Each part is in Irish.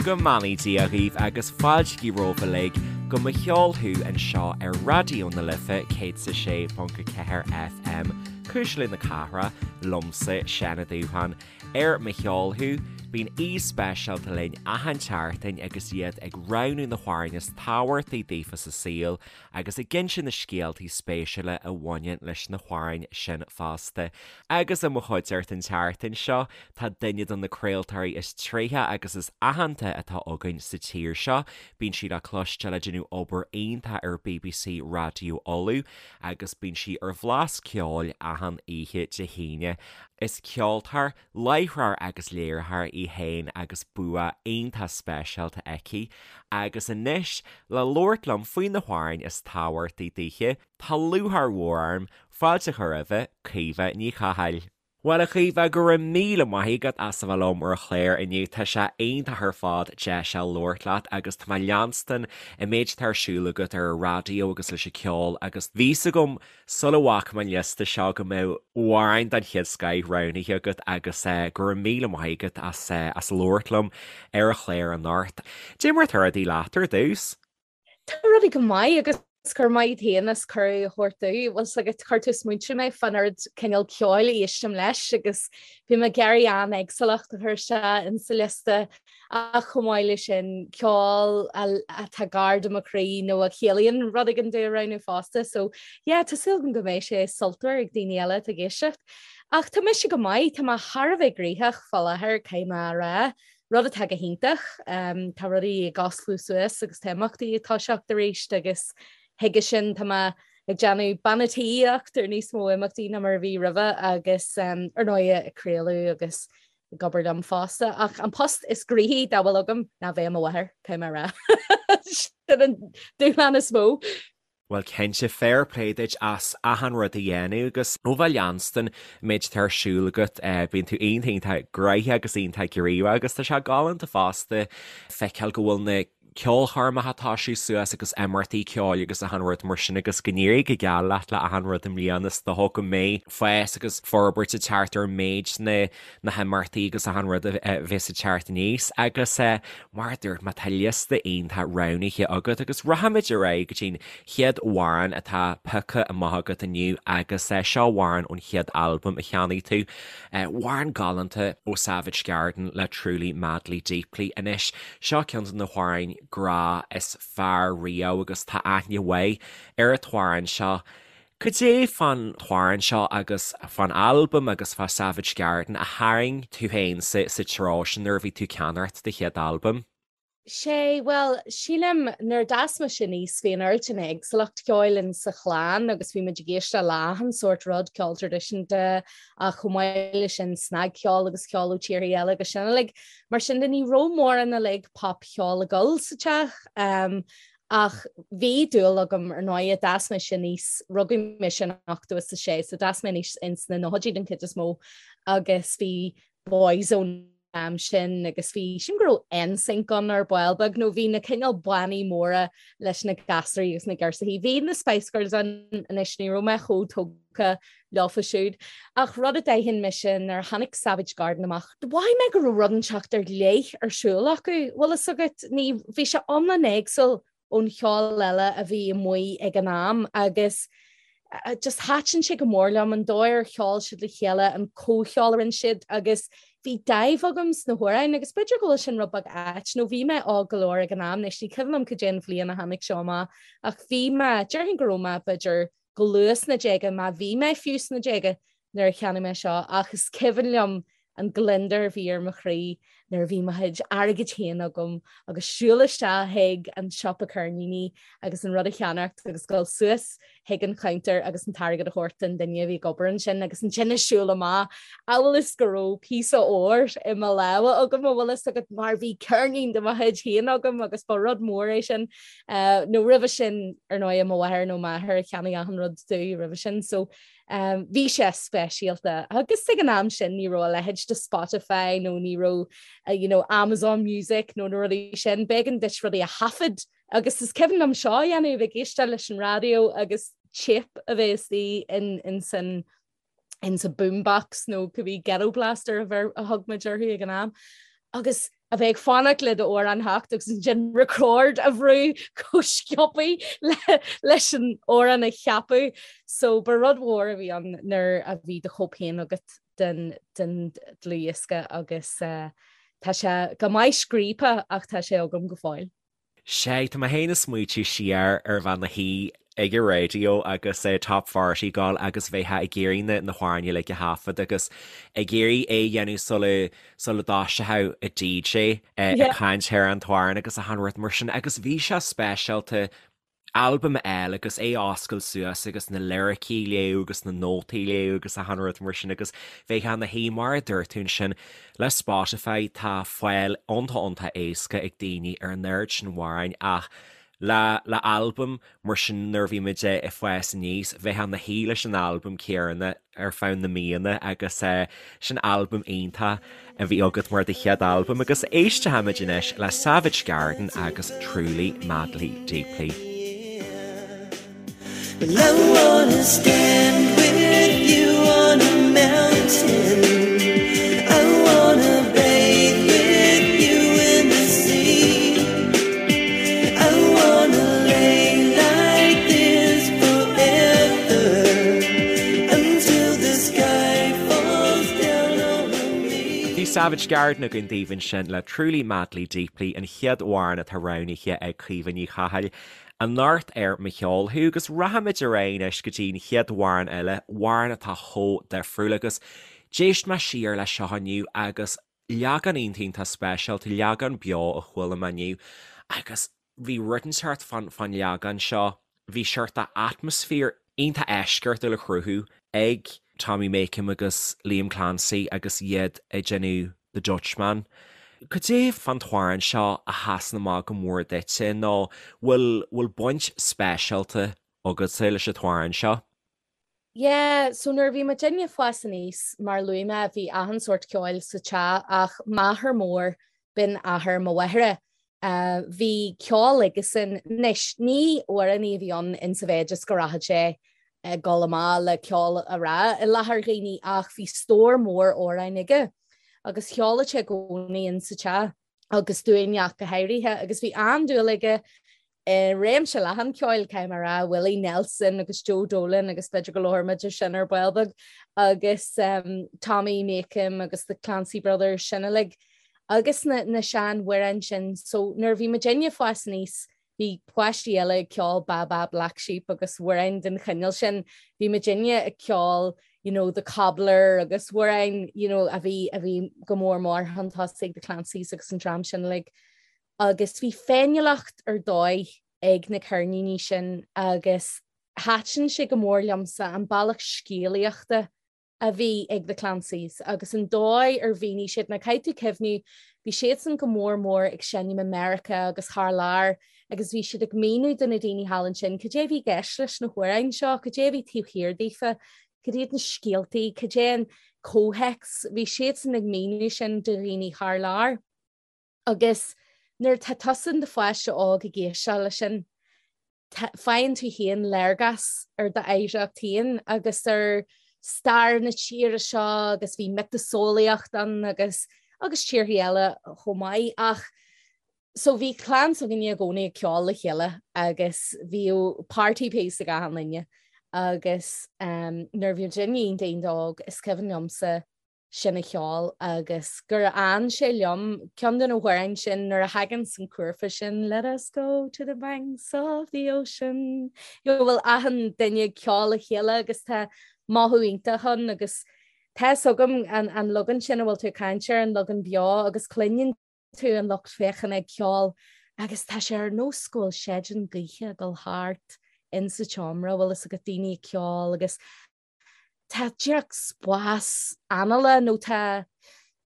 Go mbeannaí Dia dhaoibh agus fáilte romhaibh uilig go Mo Cheol Thú anseo ar Raidió na Life 106.4 FM, Cuisle na Cathrach, liomsa, Seán Ó Dúbháin. Ar Mo Cheol Thú, bíonn aoi speisialta linn achan tseachtain agus iad ag roghnú na hamhráin is tábhachtaí daofa sa saol agus ag inse na scéaltaí spéisiúla a bhaineann leis na hamhráin sin fosta. Agus i mo chuideachta an tseachtain seo, tá duine de na craoltóirí is tréithe agus is aitheanta atá againn sa tír seo. Bíonn sí le cloisteáil ag déanamh obair iontach ar bbc Raidió Uladh agus bíonn sí ar Bhlas Ceoil achan oíche Dé hAoine. Is ceoltóir, láithreoir agus léiritheoir í féin agus bua iontach speisialta aici. Agus anois, le labhairt liom faoi na hamhráin is tábhachtaí daoithe, tá lúcháir mhór orm fáilte a chur roimhe, Caoimhe Ní Chathail. Bhuel, a Chaoimhe, go raibh míle maith agat as a bheith liom ar an chlár inniu. Tá sé iontach ar fad deis a labhairt leat agus tá mé ag leanstan an méid atá ar siúl agat ar an raidió agus leis an ceol agus bhí 'fhios agam Sula bhfaca mé an liosta seo go mbeadh amhráin den chéad scoith roghnaithe agat agus go raibh míle maith agat as as labhairt liom ar an chlár anocht. Cad é mar atá rudaí leat ar dtús? Tá rudaí go maith agus go raibh maith agat féin as cuireadh a thabhairt domh. Bhfuil 's agat, chuir tú ag smaointiú mé fán oiread cineál ceoil a éistim leis agus bhí mé ag iarraidh an-éagsúlacht a chur isteach insa liosta Ach chomh maith leis sin, ceol atá gar do mo chroí nó a chiallaíonn rud éigin domh a roghnú fosta. So yeah, tá súil agam go mbeidh sé sultmhar ag daoine eile atá ag éisteacht. Ach tá mise go maith, tá mé thar a bheith gnoitheach fá láthair, caithfidh mé a rá, rud atá go hiontach. Tá rudaí ag osclú suas agus tá imeachtaí ag toiseacht arís agus chuige sin tá mé ag déanamh bean a' tí-íocht ar níos mó imeachtaí ná mar a bhí roimhe agus ar ndóigh ag craoladh agus ag obair liom fosta, ach an post is gnoithí dá bhfuil agam ná bheith i mo mháthair, caithfidh mé a rá. Sin an dúshlán is mó. Bhuel cinnte, fair play duit as achan rud a dhéanamh agus ó bheith leanstan an méid atá ar siúl agat, bíonn tú iontach iontach gnoitheach agus iontach gníomhach agus tá sé galánta fosta feiceáil go bhfuil na ceolchoirmeacha ag toiseacht suas agus imeachtaí ceoil agus achan rud mar sin agus go n-éirí go geal leat le achan rud i mbliana is dócha go mbeidh fás agus forbairt ag teacht ar méid na na himeachtaí agus achan rud a bheas ag teacht aníos agus mar a dúirt mé tá liosta iontach roghnaithe agat agus rachaimid ar aghaidh go dtí'n chéad amhrán atá pioctha amach agat inniu agus seo amhrán ón chéad albam a cheannaigh tú. Amhrán galánta ó Savage Garden le Truly Madly Deeply anois. Seo ceann de na hamhráin grá is fearr riamh agus tá aithne mhaith ar an t-amhrán seo. Cad é fán t-amhrán seo agus fán albam agus fá Savage Garden a tharraing tú féin sa treo sin nuair a bhí tú ag ceannacht do chéad albam? Sé, bhuel, sílim, nuair a d'fhás mise aníos, bhí an oiread sin éagsúlacht ceoil in sa chlann agus bhí muid ag éisteacht le achan sórt rud, ceol traidisiúnta ach chomh maith leis sin snagcheol agus ceol ó tíortha eile agus sin uilig. Mar sin de ní raibh mórán uilig popcheol ag dul sa teach ach bhí dúil agam ar ndóigh, d'fhás mise aníos, rugadh mise in 86 so d'fhás mé aníos ins na nóchaidí den chuid is mó agus bhí Boyzone an am sin agus bhí, sílim go raibh NSYNC ann ar ball beag nó bhí na cineál bannaí móra leis na gasraí agus na girseachaí. Bhí na Spice Girls ann anois ní raibh mé chomh tógtha leofa siúd. Ach rud a d'aithin mise nuair a tháinig Savage Garden amach, mhothaigh mé go raibh rud inteacht ar leith ar siúl acu. Bhfuil fhios agat, ní, bhí sé iomlán éagsúil ón cheol eile a bhí amuigh ag an am agus just thaitin sé go mór liom an dóigh ar cheol siad le chéile, an comhcheol a rinne siad agus bhí dáimh agam sna hamhráin agus b'fhéidir go bhfuil sin rud beag ait nó bhí mé óg go leor ag an am, anois ní cuimhin liom cad é an bhliain a tháinig seo amach ach bhí mé, déarfainn go raibh mé b'fhéidir go luath sna déaga, má bhí mé fiú sna déaga nuair a cheannaigh mé seo ach is cuimhin liom an gliondar a bhí ar mo chroí nuair a bhí mo chuid airgid féin agam agus siúl isteach chuig an siopa ceirníní agus an rud a cheannacht agus dul suas chuig an chuntar agus an t-airgead a thabhairt don duine a bhí ag obair ansin agus ansin ag siúl amach amhail is go raibh píosa óir i mo lámha agam a bhfuil fhios agat mar bhí ceirnín de mo chuid féin agam agus ba rud mór é sin. Nó roimhe sin ar ndóigh mo mháthair nó m'athair a cheannaigh achan rud domh roimhe sin so Bhí sé speisialta agus ag an am sin ní raibh a leithéid de Spotify nó ní raibh you know, Amazon Music nó na rudaí sin, b'éigean duit rudaí a thaifead agus is cuimhin liom seo a dhéanamh ag éisteacht leis an raidió agus téip a bheith istigh in, in san in sa boombox nó cibé ghetto blaster a, bheir, a thug muid orthu ag an am. Agus a bheith ag fanacht le d'amhrán theacht agus ansin record a bhrú chomh sciobtha leis an amhrán a cheapadh. So ba rud mhór a bhí ann nuair a bhí do chóip féin agat den den dlúthdhiosca agus tá sé go maith scríobtha ach tá sé agam go fóill. Sea, tá mé féin ag smaoitiú siar ar bheith i mo shuí ag an raidió agus Top Forty ag gabháil agus bheifeá ag iarraidh na na hamhráin uilig a thaifead agus ag iarraidh é a dhéanamh sula sula dtoiseodh an DJ ag caint ar an t-amhrán agus achan rud mar sin agus bhí sé speisialta albam a fháil agus é a oscailt suas agus na liricí a léamh agus na nótaí a léamh agus achan rud mar sin agus bheifeá ina shuí mar a dúirt tú ansin le Spotify tá fáil iontach iontach éasca ag daoine ar an oiread sin amhráin ach le le albam mar sin nuair a bhí muid ag fás aníos bheifeá ina shuí leis an albam céanna ar feadh na míonna agus sin albam iontach a bhí agat mar do chéad albam agus éistfimid anois le Savage Garden agus Truly Madly Deeply. Well I wanna stand with you on a mountain I wanna bathe with you in the sea I wanna lay like this forever Until the sky falls down on me. Bhí Savage Garden againn daoibh ansin le Truly Madly Deeply, an chéad amhrán atá roghnaithe ag Caoimhe Ní Chathail anocht ar Mo Cheol Thú agus rachaimid ar aghaidh anois go dtí an chéad amhrán eile, amhrán atá chomh difriúil agus d'éist mé siar leis seo inniu agus leagan iontach iontach speisialta, leagan beo a chuala mé inniu agus bhí rud inteacht fán fán leagan seo, bhí seort de atmaisféar iontach eisceachtúil á chruthú ag Tommy Makem agus Liam Clancy agus iad ag déanamh The Dutchman. Cad é fán t-amhrán seo a sheasann amach go mór duitse nó bhfuil bhfuil baint speisialta agatsa leis an t-amhrán seo? Yeah, so nuair a bhí muidinne ag fás aníos, mar a luaigh mé, bhí achan sórt ceoil sa teach ach m'athair mór, b'in athair mo mháthara, bhí ceol aigesan. Anois, ní amhránaí a bhí ann insa mhéid is go rachadh sé ag dul amach le ceol a rá i láthair dhaoine ach bhí stór mór amhráin aige agus cheoladh sé i gcónaí insa teach agus dúinne ach go háirithe agus bhí an-dúil aige i réimse leathan ceoil, caithfidh mé a rá, Willie Nelson agus Joe Dolan agus b'fhéidir go labhróidh muid ar sin ar ball beag agus Tommy Makem agus the Clancy Brothers sin uilig agus na, na seanamhráin sin. So nuair a bhí muidinne ag fás aníos, bhí páistí eile ag ceol Baa Baa Black Sheep agus amhráin den chineál sin. Bhí muidinne ag ceol you know, The Cobbler agus amhráin you know, a bhí, a bhí go mór mór chun tosaigh the Clancys agus an dream sin uilig. Agus bhí féiniúlacht ar dóigh ag na ceirníní sin agus thaitin sé go mór liomsa an bealach scéalaíochta a bhí ag The Clancys agus an dóigh ar mhínigh siad, now caithfidh tú cuimhniú, bhí siadsan go mór mór ag seinm i Meiriceá agus thar lear agus bhí siad ag míniú do na daoine thall ansin cad é a bhí i gceist leis na hamhráin seo, cad é a bhí taobh thiar daofa, cad iad na scéaltaí, cad é an comhthéacs, bhí siadsan ag míniú sin do dhaoine thar lear. Agus nuair atá tusa in do pháiste óg ag éisteacht leis sin, faigheann tú féin léargas ar d'oidhreacht féin agus ar stair na tíre seo agus bhí miotaseolaíocht ann agus agus tíorthaí eile chomh maith. Ach so bhí clann s'againne i gcónaí ag ceol le chéile agus bhíodh party piece ag achan duine agus nuair a bhí muidinne iontach iontach óg is cuimhin liomsa sin a cheol agus gur fhan sé liom, ceann de na hamhráin sin nuair a thagann an cúrfa sin Let us go to the banks of the ocean go bhfuil achan duine ag ceol le chéile agus tá mothú iontach ann agus tá fhios agam an, an leagan sin a bhfuil tú ag caint air, an leagan beo agus cluineann tú an lucht féachana ag ceol agus tá sé ar nós go bhfuil séideán gaoithe ag dul thart in sa tseomra, bhfuil fhios agat daoine ag ceol agus tá díreach spás anála nó tá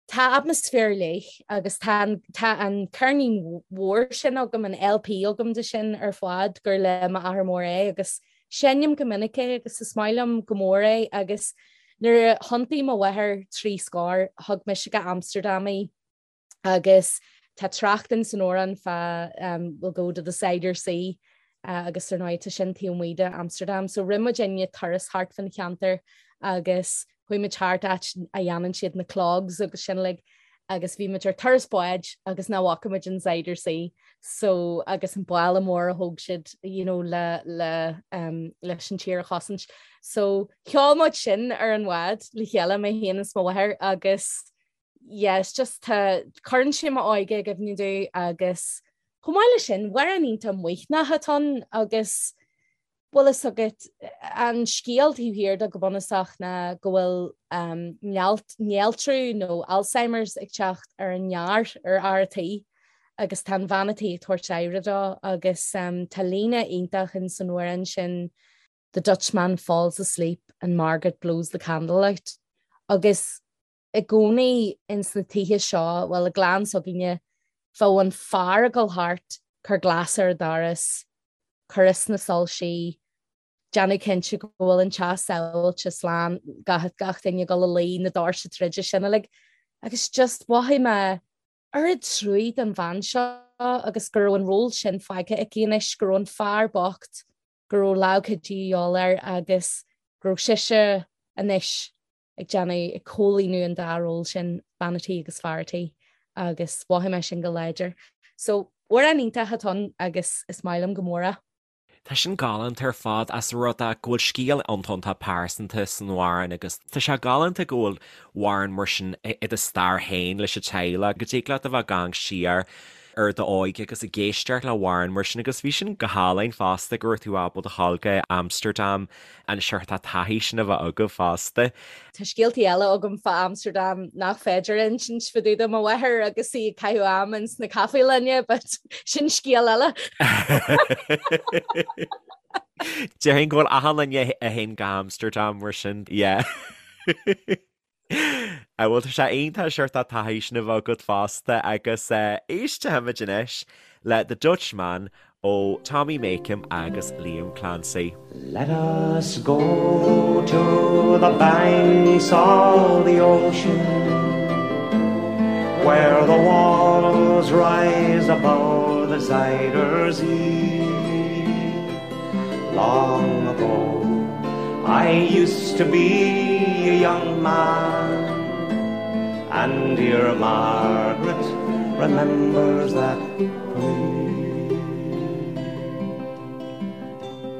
tá atmaisféar ar leith agus tá an tá an ceirnín mhór sin agam, an LP agam de sin ar fad gur le m'athair mór é agus seinnim go minic é agus is maith liom go mór é agus nuair a thiontaigh mo mháthair trí scór thug mise go Amsterdam í. Agus tá trácht in san amhrán fá we'll go to the Zuider Zee agus ar ndóigh tá sin taobh amuigh de Amsterdam. So rinne muidinne turas thart fan cheantar agus chuaigh muid thart áit a dhéanann siad na clogs agus sin uilig. Agus bhí muid ar turas báid agus nach bhfaca muid an Zuider Zee so agus an balla mór a thóg siad you know, le, le, um, leis an tír a chosaint. So cheol muid sin ar an bhád le chéile mé féin is mo mháthair agus yes, just tá cuireann sé m'óige i gcuimhne domh agus chomh maith leis sin, amhrán iontach maoithneach atá ann agus bhfuil fhios agat, an scéal taobh thiar de go bunúsach ná go bhfuil néaltrú nó Alzheimer's ag teacht ar an fhear, ar fhear a' tí agus tá an bhean a' tí ag tabhairt aire dó agus tá líne iontach in san amhrán sin 'The Dutchman falls asleep and Margaret blows the candle out' agus i gcónaí ins na tithe seo, bhuel i gclann s'againne, bheadh an fear ag dul thart, cur glas ar an doras, cur as na soilsí, déanamh cinnte go bhfuil an teach sábháilte, slán, gach, gach duine ag dul a luí, na doirse troidte, sin uilig. Agus just mhothaigh mé oiread truaí don bhean seo agus go raibh an ról sin fágtha aici anois, go raibh an fear bocht, go raibh lámh cuidithe de dhíobháil air agus go raibh sise anois ag déanamh, ag comhlíonadh an dá ról sin, bean a' tí agus fear a' tí, agus mhothaigh mé sin go láidir. So, amhrán iontach atá ann agus is maith liom go mór é. Tá sin galánta ar fad as rud é go bhfuil scéal iontach iontach pearsanta san amhrán agus tá sé galánta go bhfuil amhrán mar sin i do stair féin leis an teaghlach, go dtig leat a bheith ag amharc siar ar d'óige agus ag éisteacht le hamhrán mar sin agus bhí sin go hálainn fosta go raibh tú ábalta a ghabháil go Amsterdam an seort taithí sin a bheith agaibh fosta. Tá scéaltaí eile agam fá Amsterdam nach féidir a insint fá dtaobh de mo mháthair agus í ag caitheamh am ins na caifélanna but sin scéal eile. Déarfainn go bhfuil achan duine a théann go Amsterdam mar sin, yeah. Bhuel tá sé iontach seort taithí sin a bheith agat fosta agus éistfimid anois le The Dutchman ó Tommy Makem agus Liam Clancy. Let us go to the banks of the ocean Where the walls rise above the Zuyder Zee Long ago I used to be a young man And dear Margaret remembers that for me.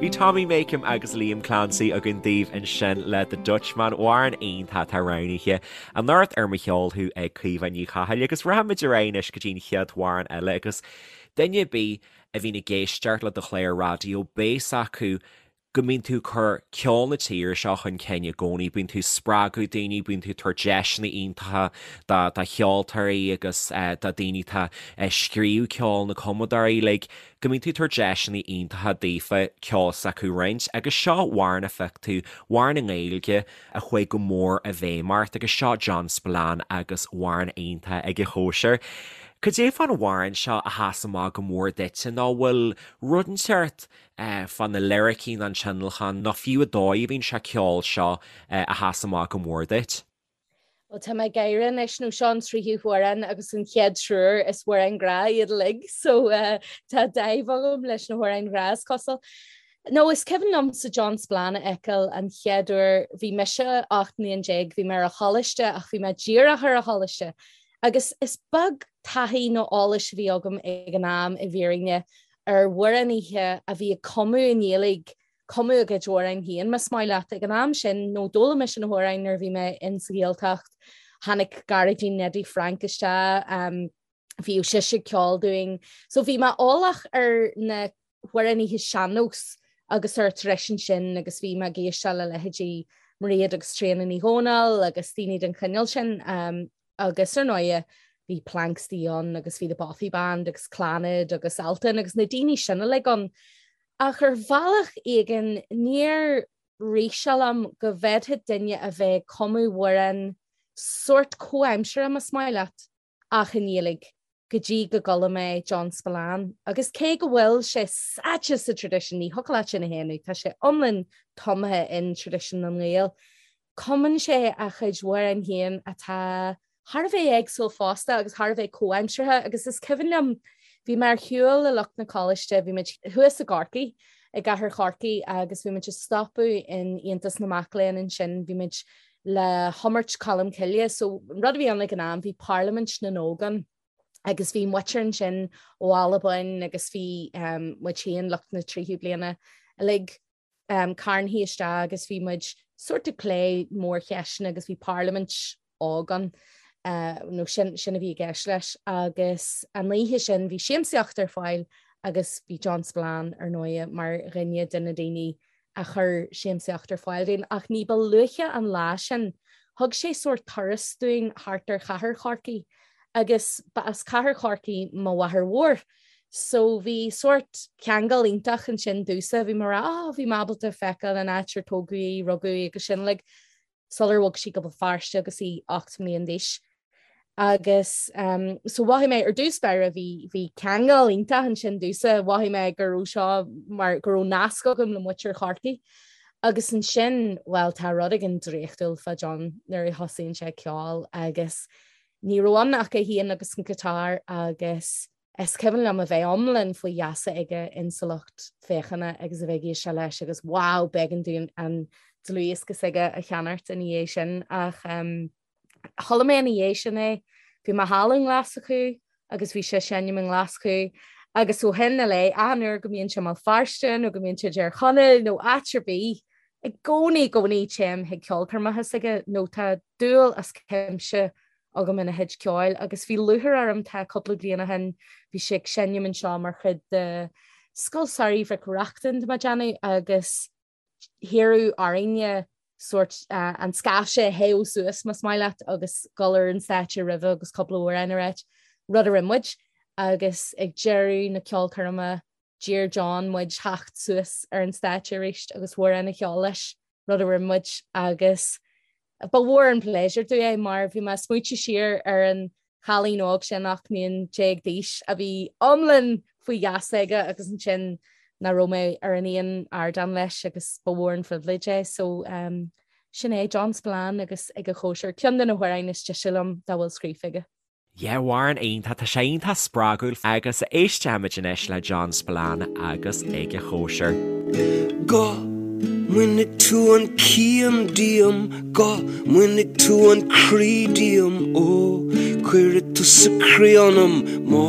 Bhí Tommy Makem agus Liam Clancy againn daoibh ansin le The Dutchman, amhrán iontach atá roghnaithe anocht ar Mo Cheol Thú ag Caoimhe Ní Chathail agus rachaimid ar aghaidh anois go dtí an chéad amhrán eile agus duine ar bith a bhíonn ag éisteacht le do chlár raidió beidh a fhios acu go mbíonn tú ag cur ceol na tíre seo chun cinn i gcónaí, bíonn tú ag spreagadh daoine, bíonn tú ag tabhairt deiseanna iontacha do do cheoltóirí agus do daoine atá ag scríobh ceoil, na cumadóirí uilig, go mbíonn tú ag tabhairt deiseanna iontacha daofa ceol s'acu a roinnt agus seo amhrán a phioc tú, amhrán i nGaeilge a chuaigh go mór i bhfeidhm ort agus seo John Spillane agus amhrán iontach ag an chóisir. Cad é fán amhrán seo a sheas amach go mór duitse nó bhfuil rud inteacht fá na liricí nó an tionlacan nó fiú an dóigh a bhíonn sé ag ceol seo a sheas amach go mór duit? Bhuel, tá mé ag gáire anois nó seo an tríú hamhrán agus an chéad triúr is amhráin ghrá iad uilig so tá dáimh agam leis na hamhráin ghrá is cosúil. No, is cuimhin liomsa John Spillane a fheiceáil an chéad uair, bhí mise 18 mbliain, bhí mé ar an choláiste ach bhí mé díreach ar an choláiste agus is beag taithí nó eolais a bhí agam ag an am i bhfírinne ar amhránaithe a bhí ag cumadh i nGaeilge, cumadh a gcuid amhráin féin, más maith leat. Ag an am sin, nó d'fhoghlaim mise na hamhráin nuair a bhí mé in sa Ghaeltacht, tháinig Gearóidín Neidí Frainc isteach, bhíodh sise ag ceol dúinn. So bhí mé eolach ar na hamhránaithe sean-nós agus ar an traidisiún sin agus bhí mé ag éisteacht le leithéidí Mairéad agus Tríona Ní Dhomhnaill agus daoine den chineál sin. Agus ar ndóighe bhí Planxty ann agus bhí The Bothy Band agus Clannad agus Altan agus na daoine sin uilig ann. Ach ar bhealach éigin níor rith sé liom go bhféadfadh duine a bheith ag cumadh amhrán sórt comhaimseartha más maith leat ach i nGaeilge go dtí go gcuala mé John Spillane. Agus cé go bhfuil sé sáite sa traidisiún, ní thiocfadh leat sin a shéanadh, tá sé iomlán tumtha in traidisiún na nGael, Cumann sé a chuid amhrán féin atá thar a bheith éagsúil fosta agus thar a bheith comhaimseartha agus is cuimhin liom, bhí mé ar shiúl le lucht na coláiste, bhí muid thuas i gCorcaigh. i gcathair Chorcaí agus bhí muid ag stopadh in Aontas na Mac Léinn ansin, bhí muid le hiomairt Colm Cille. So an rud a bhí ann ag an am, bhí Parlaimint na nÓg ann agus bhí muintir ansin ó Albain agus bhí muid féin, lucht na tríú bliana uilig carntha isteach agus bhí muid sórt ag plé mórcheisteanna agus bhí parlaimint óg ann nó sin sin a bhí i gceist leis agus an oíche sin bhí siamsaíocht ar fáil agus bhí John Spillane ar ndóighe mar dhuine de na daoine a chuir siamsaíocht ar fáil dúinn ach ní ba luaithe an lá sin thug sé sórt turas dúinn thart ar chathair Chorcaí agus ba as cathair Chorcaí mo mháthair mhór So bhí sórt ceangal iontach ansin domhsa, bhí mé ag rá oh bhí mé ábalta feiceáil an áit ar tógadh í, rugadh í agus sin uilig sular bhog sí go Béal Feirste agus í 8 mbliain d'aois. Agus um, so mhothaigh mé ar dtús báire bhí bhí ceangal iontach ansin domhsa, mhothaigh mé go raibh seo mar go raibh nasc agam le muintir Chorcaí. Agus ansin, well tá rud éigin draíochtúil fá John nuair a thosaíonn sé ag ceol agus Ní raibh ann ach é féin agus an guitar agus is cuimhin liom a bheith iomlán faoi gheasa aige insa lucht féachana agus a bheith ag éisteacht leis agus wow b'éigean dúinn an dlúthdhiosca s'aige a cheannacht ina dhiaidh sin ach chuala mé ina dhiaidh sin é, bhí mé thall i nGlaschú agus bhí sé ag seinm i nGlaschú agus ó shin i leith achan uair go mbíonn sé i mBéal Feirste nó go mbíonn sé i dTír Chonaill nó áit ar bith I gcónaí, i gcónaí téim chuig ceolchoirmeacha s'aige nó tá dúil as cuimse agam ina chuid ceoil agus bhí lúcháir orm tá cúpla bliain ó shin bhí sé ag seinm anseo mar chuid de Scoil Samhraidh Mhic Reachtain tá mé ag déanamh agus hiarradh orainne sórt an scaifte a théamh suas más maith leat agus dul ar an stáitse roimhe agus cúpla amhrán a ráit, rud a rinne muid agus ag deireadh na ceolchoirme D'iarr John muid theacht suas ar an stáitse arís agus amhrán a cheol leis, rud a rinne muid agus ba mhór an pléisiúr domh é mar bhí mé ag smaointiú siar ar an chailín óg sin 18 mbliain d'aois a bhí iomlán faoi gheasa aige agus ansin nach raibh mé ar an aon ardán leis agus ba mhór an phribhléid é. So um, sin é John Spillane agus Ag a Chóisir, ceann de na hamhráin is deise liom dá bhfuil scríofa aige. Yeah, amhrán iontach, tá sé iontach spreagúil agus éistfimid anois le John Spillane agus Ag a Chóisir. Go mbainfidh tú an cian díom, go mbainfidh tú an croí díom, ó cuirfidh tusa croí ionam má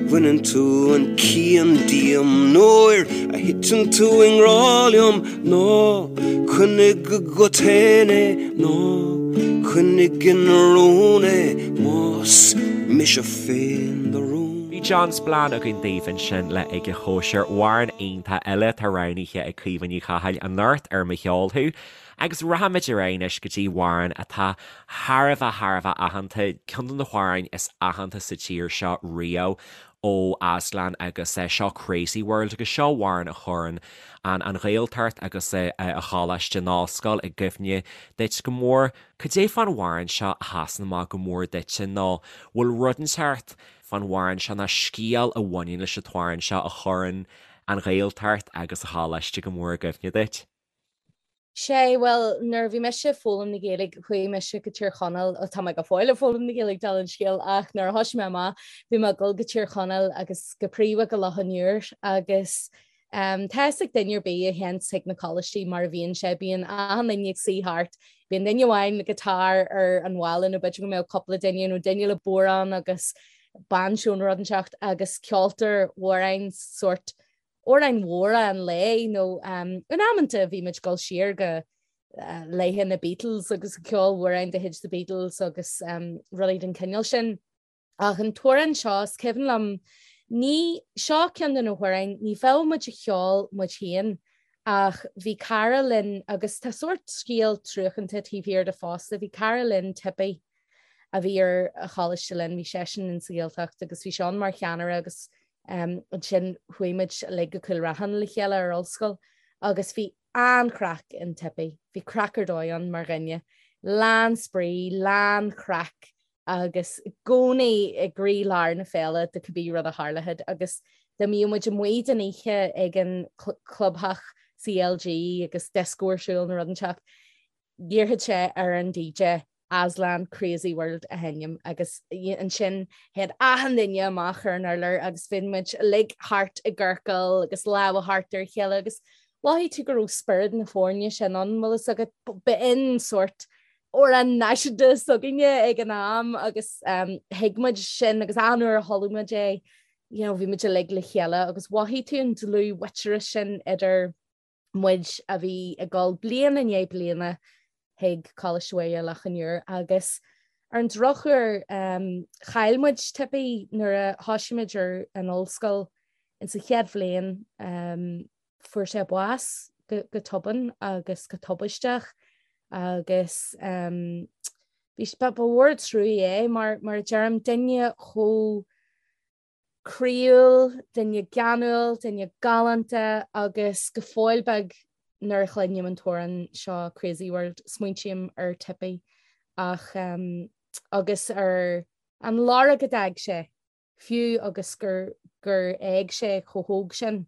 bhaineann tú an cian díom. Nuair a thiteann tú i ngrá liom, Ná coinnigh agat fhéin é, ná coinnigh ina rún é, más mise féin do rún. Bhí John Spillane againn daoibh ansin le Ag a Chóisir, amhrán iontach eile atá roghnaithe ag Caoimhe Ní Chathail anocht ar Mo Cheol Thú. Agus rachaimid ar aghaidh anois go dtí amhrán atá thar a bheith thar a bheith aitheanta, ceann de na hamhráin is aitheanta sa tír seo riamh. ó Aslan agus seo Crazy World agus seo amhrán a chuireann an an Ghaeltacht agus a choláiste, an ollscoil i gcuimhne duit go mór. Cad é fán amhrán seo a sheasann amach go mór duitse nó bhfuil rud inteacht fán amhrán seo nó scéal a bhaineann leis an t-amhrán seo a chuireann an Ghaeltacht agus a choláiste go mór i gcuimhne duit? Sé, bhuel, nuair a bhí mise ag foghlaim na Gaeilge, chuaigh mise go Tír Chonaill, ó tá mé go fóill ag foghlaim na Gaeilge, dála an scéil, ach nuair a thosaigh mé amach, bhí mé ag dul go Tír Chonaill agus go príomha go Loch an Iúir agus um, tá fhios ag duine ar bith a théanns chuig na coláistí mar a bhíonn sé, bíonn achan duine ag suí thart, bíonn duine amháin le guitar ar an bhalla nó b'fhéidir go mbeadh cúpla duine nó duine le bodhrán agus banjo nó rud inteacht agus ceoltar amhráin sórt amhráin mhóra an lae nó in amanta bhí muid ag dul siar go laethe na Beatles agus ceol amhráin de chuid the Beatles agus rudaí den chineál sin. Ach an t-amhrán seo, is cuimhin liom, ní, seo ceann de na hamhráin, ní bheadh muid á cheol muid féin ach bhí cara linn agus tá sórt scéal truacánta taobh thiar de fosta, bhí cara linn, Tippy, a bhí ar an choláiste linn, bhí seisean in sa Ghaeltacht agus bhí sé ann mar cheannaire agus Ansin chuaigh muid uilig go Cúil Raithin le chéile ar ollscoil agus bhí an-chraic in Tippy. Bhí craic ar dóigh ann mar dhuine. Lán spraoi, lán craic agus i gcónaí i gcroí-lár na féile de cibé rud a tharlódh agus dá mbíodh muid amuigh den oíche ag an clubtheach CLG agus dioscó ar siúl nó rud inteacht, Iarrfadh sé ar an DJ. Aslan Crazy World a sheinm agus ansin théadh achan duine amach ar an urlár agus bhí muid uilig thart i gciorcal agus lámha thart ar a chéile agus mhothaigh tú go raibh spiorad na foirne sin ann, bhfuil fhios agat, b'in sórt amhrán náisiúnta s'againne ag an am agus thuig muid sin agus achan uair a chuala muid é, you know, bhí muid uilig le chéile agus mhothaigh tú an dlúthmhuintearas sin idir muid a bhí ag dul bliain i ndiaidh bliana chuig Coláiste Mhuire Loch an Iúir agus ar an drochuair chaill muid Tippy nuair a thosaigh muid ar an ollscoil insa chéad bhliain fuair sé bás go tobann agus go tubaisteach agus bhí ba mhór an trua é mar mar a deirim duine chomh croíúil, duine geanúil, duine galánta agus go fóill beag nuair a chluinim an t-amhrán seo Crazy World smaointím ar Tippy ach agus ar an lorg a d'fhág sé fiú agus gur gur éag sé chomh hóg sin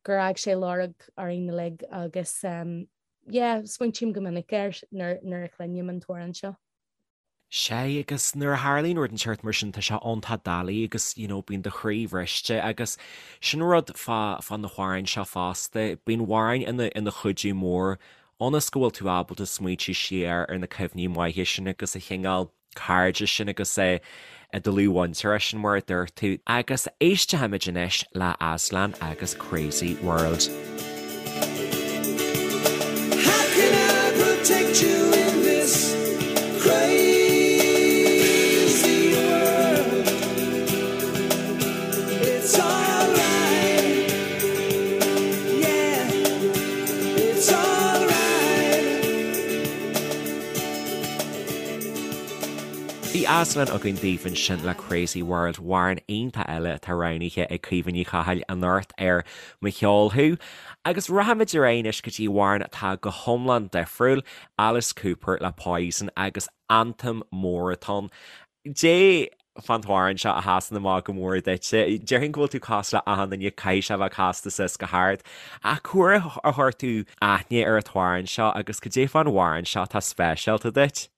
gur fhág sé lorg orainn uilig agus yeah smaointím go minic air nuair nuair a chluinim an t-amhrán seo. Sea, agus nuair a tharlaíonn rud den tseort mar sin, tá sé iontach doiligh agus, you know, bíonn do chroí bhriste agus sin rud fá, fá na hamhráin seo fosta, bíonn amhráin ina, ina chuidiú mór ionas go bhfuil tú ábalta smaointiú siar ar na cuimhní maithe sin agus an chineál cairde sin agus an dlúthmhuintearas sin mar a dúirt tú. Agus éistfimid anois le Aslan agus Crazy World. How can I protect you in this crazy world? It's alright, yeah, it's alright. Bhí Aslan againn daoibh ansin le Crazy World, amhrán iontach eile atá roghnaithe ag Caoimhe Ní Chathail anocht ar Mo Cheol Thú. Agus rachaimid ar aghaidh anois go dtí amhrán atá go hiomlán difriúil, Alice Cooper le Poison agus anthem mór atá ann. Dé fán t-amhrán seo a sheasann amach go mór duitse. Déarfainn go bhfuil tú cosúil le achan duine, caithfidh sé a bheith casta suas go hard. Ach cá huair a chuir tú aithne ar an t-amhrán seo agus cad é fán amhrán seo atá speisialta duit?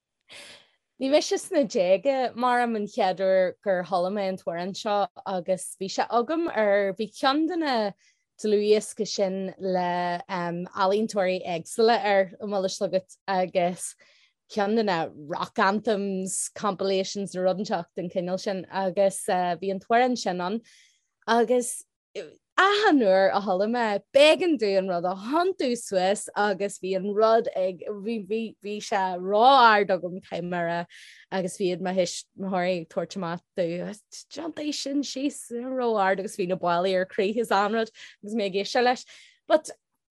Bhí mise sna déaga maram an chéad uair gur chuala mé an t-amhrán seo agus bhí sé agam ar, bhí ceann de na dlúthdhioscaí sin le ealaíontóirí éagsúla air, an bhfuil fhios agat, agus ceann de na rock anthems compilations nó rud inteacht den chineál sin agus bhí an t-amhrán sin ann agus achan uair a chuala mé b'éigean domh an rud a thiontú suas agus bhí an rud ag bhí bhí bhí sé ró-ard agam caithfidh mé a rá agus bhí mo thuismitheoirí ag tabhairt amach domh tiontaigh sin síos ró-ard agus bhí na ballaí ar crith is an rud agus mé ag éisteacht leis. But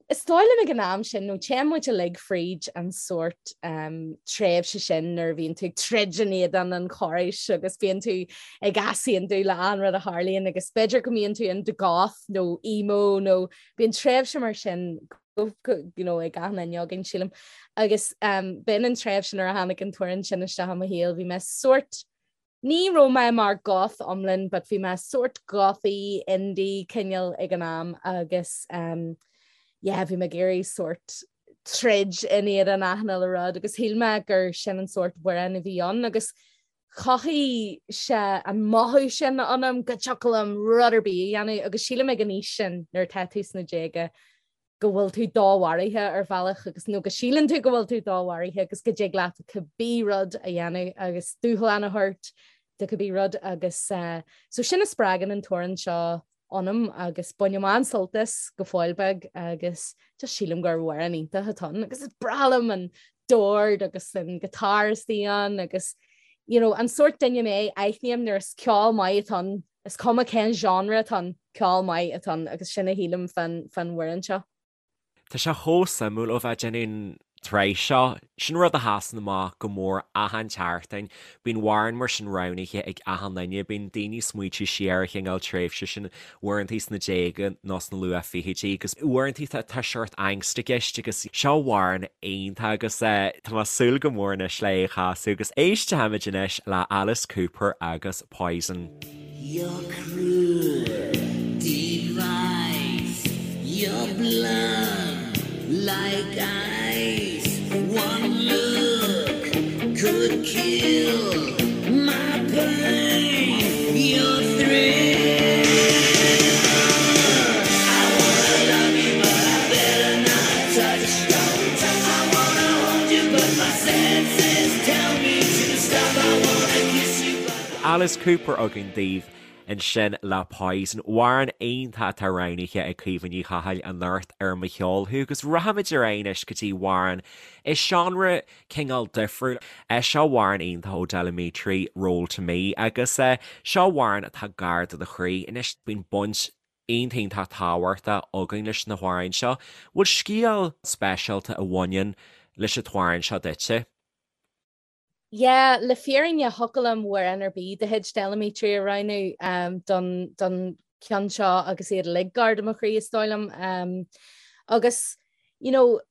Is dóigh liom ag an am sin, nó téann muid uilig fríd an sórt tréimhse sin nuair a bhíonn tú ag troid in éadan an chórais agus bíonn tú ag easaontú le achan rud a tharlaíonn agus b'fhéidir go mbíonn tú into goth nó emo nó bíonn tréimhse mar sin you know, ag achan duine againn sílim. Agus b'in an tréimhse nuair a tháinig an t-amhrán sin isteach i mo shaol, bhí mé sórt Ní raibh mé mar goth iomlán but bhí mé sórt gothy indie cineál ag an am agus um, yeah, bhí mé ag iarraidh sórt troid in éadan achan uile rud agus shíl mé gur sin an sórt amhráin a bhí ann agus chothaigh sé an mothú sin ionam go dtiocfadh liom rud ar bith a dhéanamh agus sílim ag an aois sin nuair atá tú sna déaga go bhfuil tú domharaithe ar bhealach agus nó go síleann tú go bhfuil tú domharaithe agus go dtig leat cibé rud a dhéanamh agus dúshlán a thabhairt do cibé rud agus so sin a spreagann an t-amhrán seo ionam agus bainim an-sult as go fóill beag agus just sílim gur amhrán iontach atá ann agus is breá liom an dord agus an guitar istigh ann agus you know, an sórt duine mé aithním nuair is ceol maith atá ann Is cuma cén genre atá ann, ceol maith atá ann agus sin a shílim fán amhrán seo. Tá sé chomh suimiúil ó bheith ag déanamh an tsraith seo. Sin rud a sheasann amach go mór achan tseachtain. Bíonn amhrán mar sin roghnaithe ag achan duine. Bíonn daoine ag smaointiú siar ar an chineál tréimhse sin, uaireantaí sna déaga nó sna luath fichidí agus uaireantaí tá seort angst i gceist agus seo amhrán iontach agus tá mé ag súil go mór anois le é a chasadh agus éistfimid anois le Alice Cooper agus Poison. Your cruel device, your blood like ice. One look could kill my pain, your thrill. I wanna love you, but I better not touch. I wanna hold you, but my senses tell me to stop. I wanna kiss you, but Alice Cooper againn daoibh ansin le Poison. Amhrán iontach atá roghnaithe ag Caoimhe Ní Chathail anocht ar Mo Cheol Thú agus rachaimid ar aghaidh anois go dtí amhrán i seánra cineál difriúil. Seo amhrán iontach ó Del Amitri, Roll To Me, agus seo amhrán atá gar do do chroí. Anois bíonn baint iontach iontach tábhachtach againn leis na hamhráin seo. Bhfuil scéal speisialta a bhaineann leis an t-amhrán seo duitse? Yeah, le fírinne thiocfadh liom amhrán ar bith de chuid Del Amitri a roghnú don don ceann seo agus iad uilig gar do mo chroí is dóigh liom. Agus you know,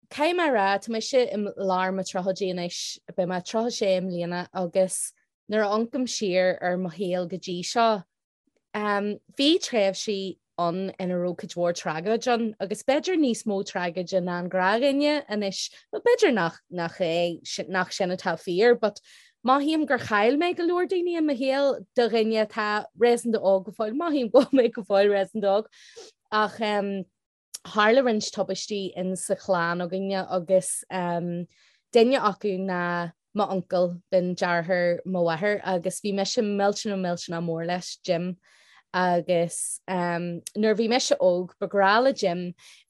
caithfidh mé a rá, tá mise i lár mo tríochaidí anois, beidh mé 36 i mbliana agus nuair a amharcaim siar ar mo shaol go dtí seo, Bhí tréimhsí ann ina raibh cuid mhór tragóid ann agus b'fhéidir níos mó tragóide ná an gnáthdhuine anois, bhuel b'fhéidir nach nach é nach sin atá fíor but mothaím gur chaill mé go leor daoine i mo shaol do dhuine atá réasúnta óg go fóill, mothaím go bhfuil mé go fóill réasúnta óg ach tharla roinnt tubaistí in sa chlann againne agus duine acu ná m'uncail, b'in deartháir mo mháthar agus bhí mise millteanach millteanach mór leis, Jim. Agus nuair a bhí mise óg ba ghnách le Jim,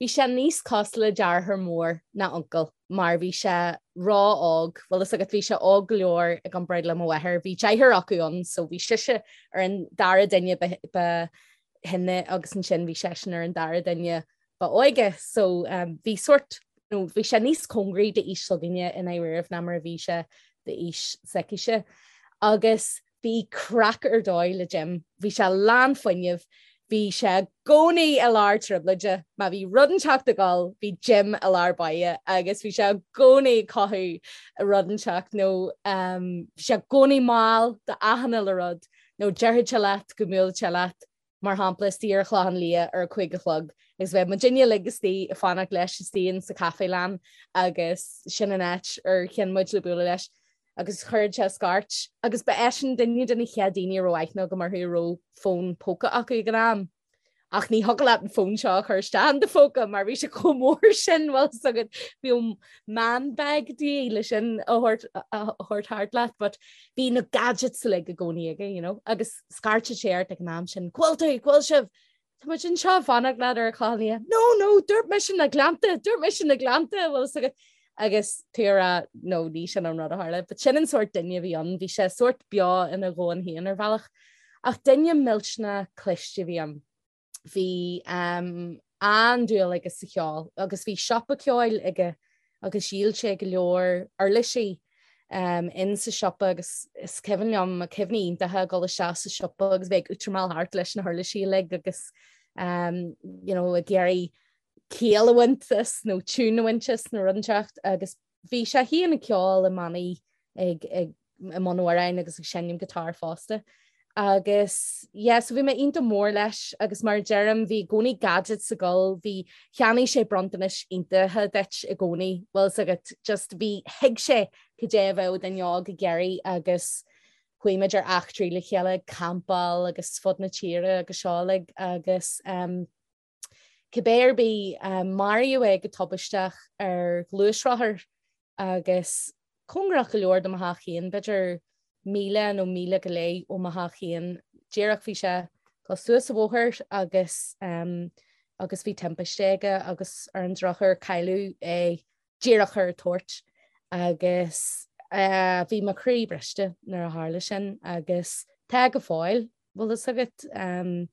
bhí sé níos cosúil le deartháir mór ná uncail mar bhí sé ró-óg, bhfuil fhios agat, bhí sé óg go leor i gcomparáid le mo mháthair, bhí deartháir acu ann so bhí sise ar an dara duine ba shine agus ansin bhí seisean ar an dara duine ba óige so bhí sórt nó bhí sé níos cóngaraí d'aois s'againne i ndáiríribh ná mar a bhí sé d'aois s'aicise. Agus bhí craic ar dóigh le Jim, bhí sé lán fuinnimh, bhí sé i gcónaí i lár trioblóide, má bhí rud inteacht ag dul bhí Jim i lár báire agus bhí sé i gcónaí ag cothú rud inteacht nó bhí sé i gcónaí mall d'achan uile rud. nó déarfadh sé leat go mbuailfeadh sé leat, mar shampla, istigh ar an Chlochán Liath ar a 5 a chlog agus bheadh muidinne uilig istigh ag fanacht leis istigh in sa Cafelan agus sin an áit ar chinn muid le bualadh leis agus chuirfeadh sé scairt agus ba eisean duine de na chéad daoine a raibh aithne agam orthu a raibh fón póca acu ag an am. Ach ní thiocfadh leat an fón seo a chur isteach in do phóca mar bhí sé chomh mór sin bhfuil fhios agat bhí man bag de dhíth le sin a thabhairt thart leat but bhí na gadgets uilig i gcónaí aige you know agus scairteadh sé ort ag an am sin Cá bhfuil tú, cá bhfuil sibh? Tá muid anseo ag fanacht leat ar an Chlochán Liath. No, no, dúirt mise na Gleannta, dúirt mise na Gleannta bhfuil fhios agat agus tú ag rá no ní sin an rud a tharla, but sin an sórt duine a bhí ann, bhí sé sórt beo ina dhomhan féin ar bhealach. Ach duine millteanach cliste a bhí ann. Bhí an-dúil aige sa cheol agus bhí siopa ceoil aige agus dhíol sé go leor uirlisí in sa siopa agus is cuimhin liom cuimhní iontacha ag dul isteach sa siopa agus bheith ag útramáil thart leis na huirlisí uilig agus you know, ag iarraidh ciall a bhaint as nó tiún a bhaint as nó rud inteacht agus bhí sé féin ag ceol i mbannaí ag ag i mbun amhráin agus ag seinm guitar fosta. Agus yeah, so bhí mé iontach mór leis agus mar a deirim bhí i gcónaí gadgets ag dul, bhí cheannaigh sé bronntanais iontacha duit i gcónaí, bhfuil fhios agat, just bhí thuig sé cad é a bheadh duine óg ag iarraidh agus chuaigh muid ar eachtraí le chéile ag campáil agus fud na tíre agus seo uilig agus um, Cibé ar bith, maraíodh é go tubaisteach ar ghluaisrothar agus cóngarach go leor do mo theach féin, b'fhéidir míle nó míle go leith ó mo theach féin. Díreach bhí sé ag dul suas an bhóthar agus agus bhí timpiste aige agus ar an drochuair cailleadh é díreach ar an toirt agus bhí mo chroí briste nuair a tharla sin agus tá go fóill. Bhfuil fhios agat,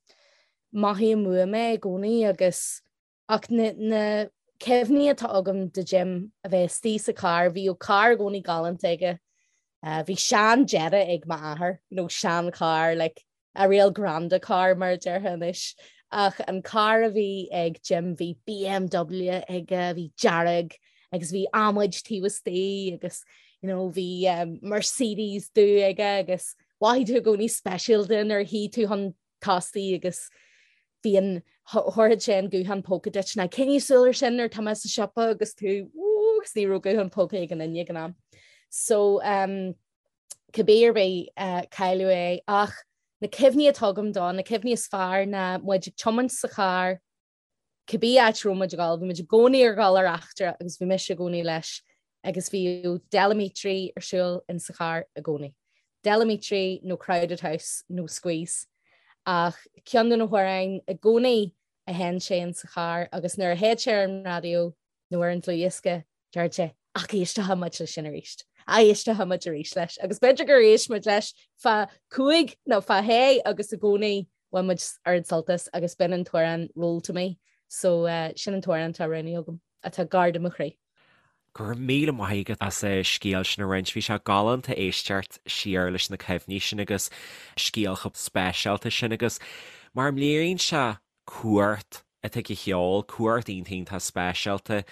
mothaím uaim é i gcónaí agus, ach na, na cuimhní atá agam de Jim a bheith istigh sa charr, bhíodh carr i gcónaí galánta aige, bhí sean Jetta ag m'athair, you know, sean charr, like a real granda car mar a déarfá anois, ach an carr a bhí ag Jim bhí BMW aige, bhí dearg agus bhí adhmaid taobh istigh agus, you know, bhí Mercedes dubh aige agus Mhothaigh tú i gcónaí speisialta nuair a shuigh tú chun tosaigh agus bhí an, thabharfadh sé an guthán póca duit ná coinnigh súil ar sin nuair atá mé sa siopa agus tú, agus ní raibh guthán póca ag aon duine ag an am. So um, cibé ar bith uh, cailleadh é ach na cuimhní atá agam dó, na cuimhní is fearr ná muid ag tiomáint sa charr, cibé áit a raibh muid ag dul, bhí muid i gcónaí ar dhul ar eachtra agus bhí mise i gcónaí leis agus bhíodh Del Amitri ar siúl in sa charr i gcónaí. Del Amitri nó Crowded House nó Squeeze. Ach ceann de na hamhráin i gcónaí a sheinn sé in sa charr agus nuair a théid sé ar an raidió nó ar an dlúthdhiosca Deir sé, Ach éistfidh muid leis sin arís. Éistfidh muid arís leis. Agus b'fhéidir gur éist muid leis feadh cúig nó feadh shé agus i gcónaí bhain muid oiread sult as agus b'in an t-amhrán Roll to Me. So sin an t-amhrán atá roghnaithe agam, atá gar do mo chroí. Go raibh míle maith agat as an scéal sin a roinnt. Bhí sé galánta éisteacht siar leis na cuimhní sin agus scéal chomh speisialta sin agus mar a léiríonn sé cumhacht atá ag an cheol, cumhacht iontach iontach speisialta.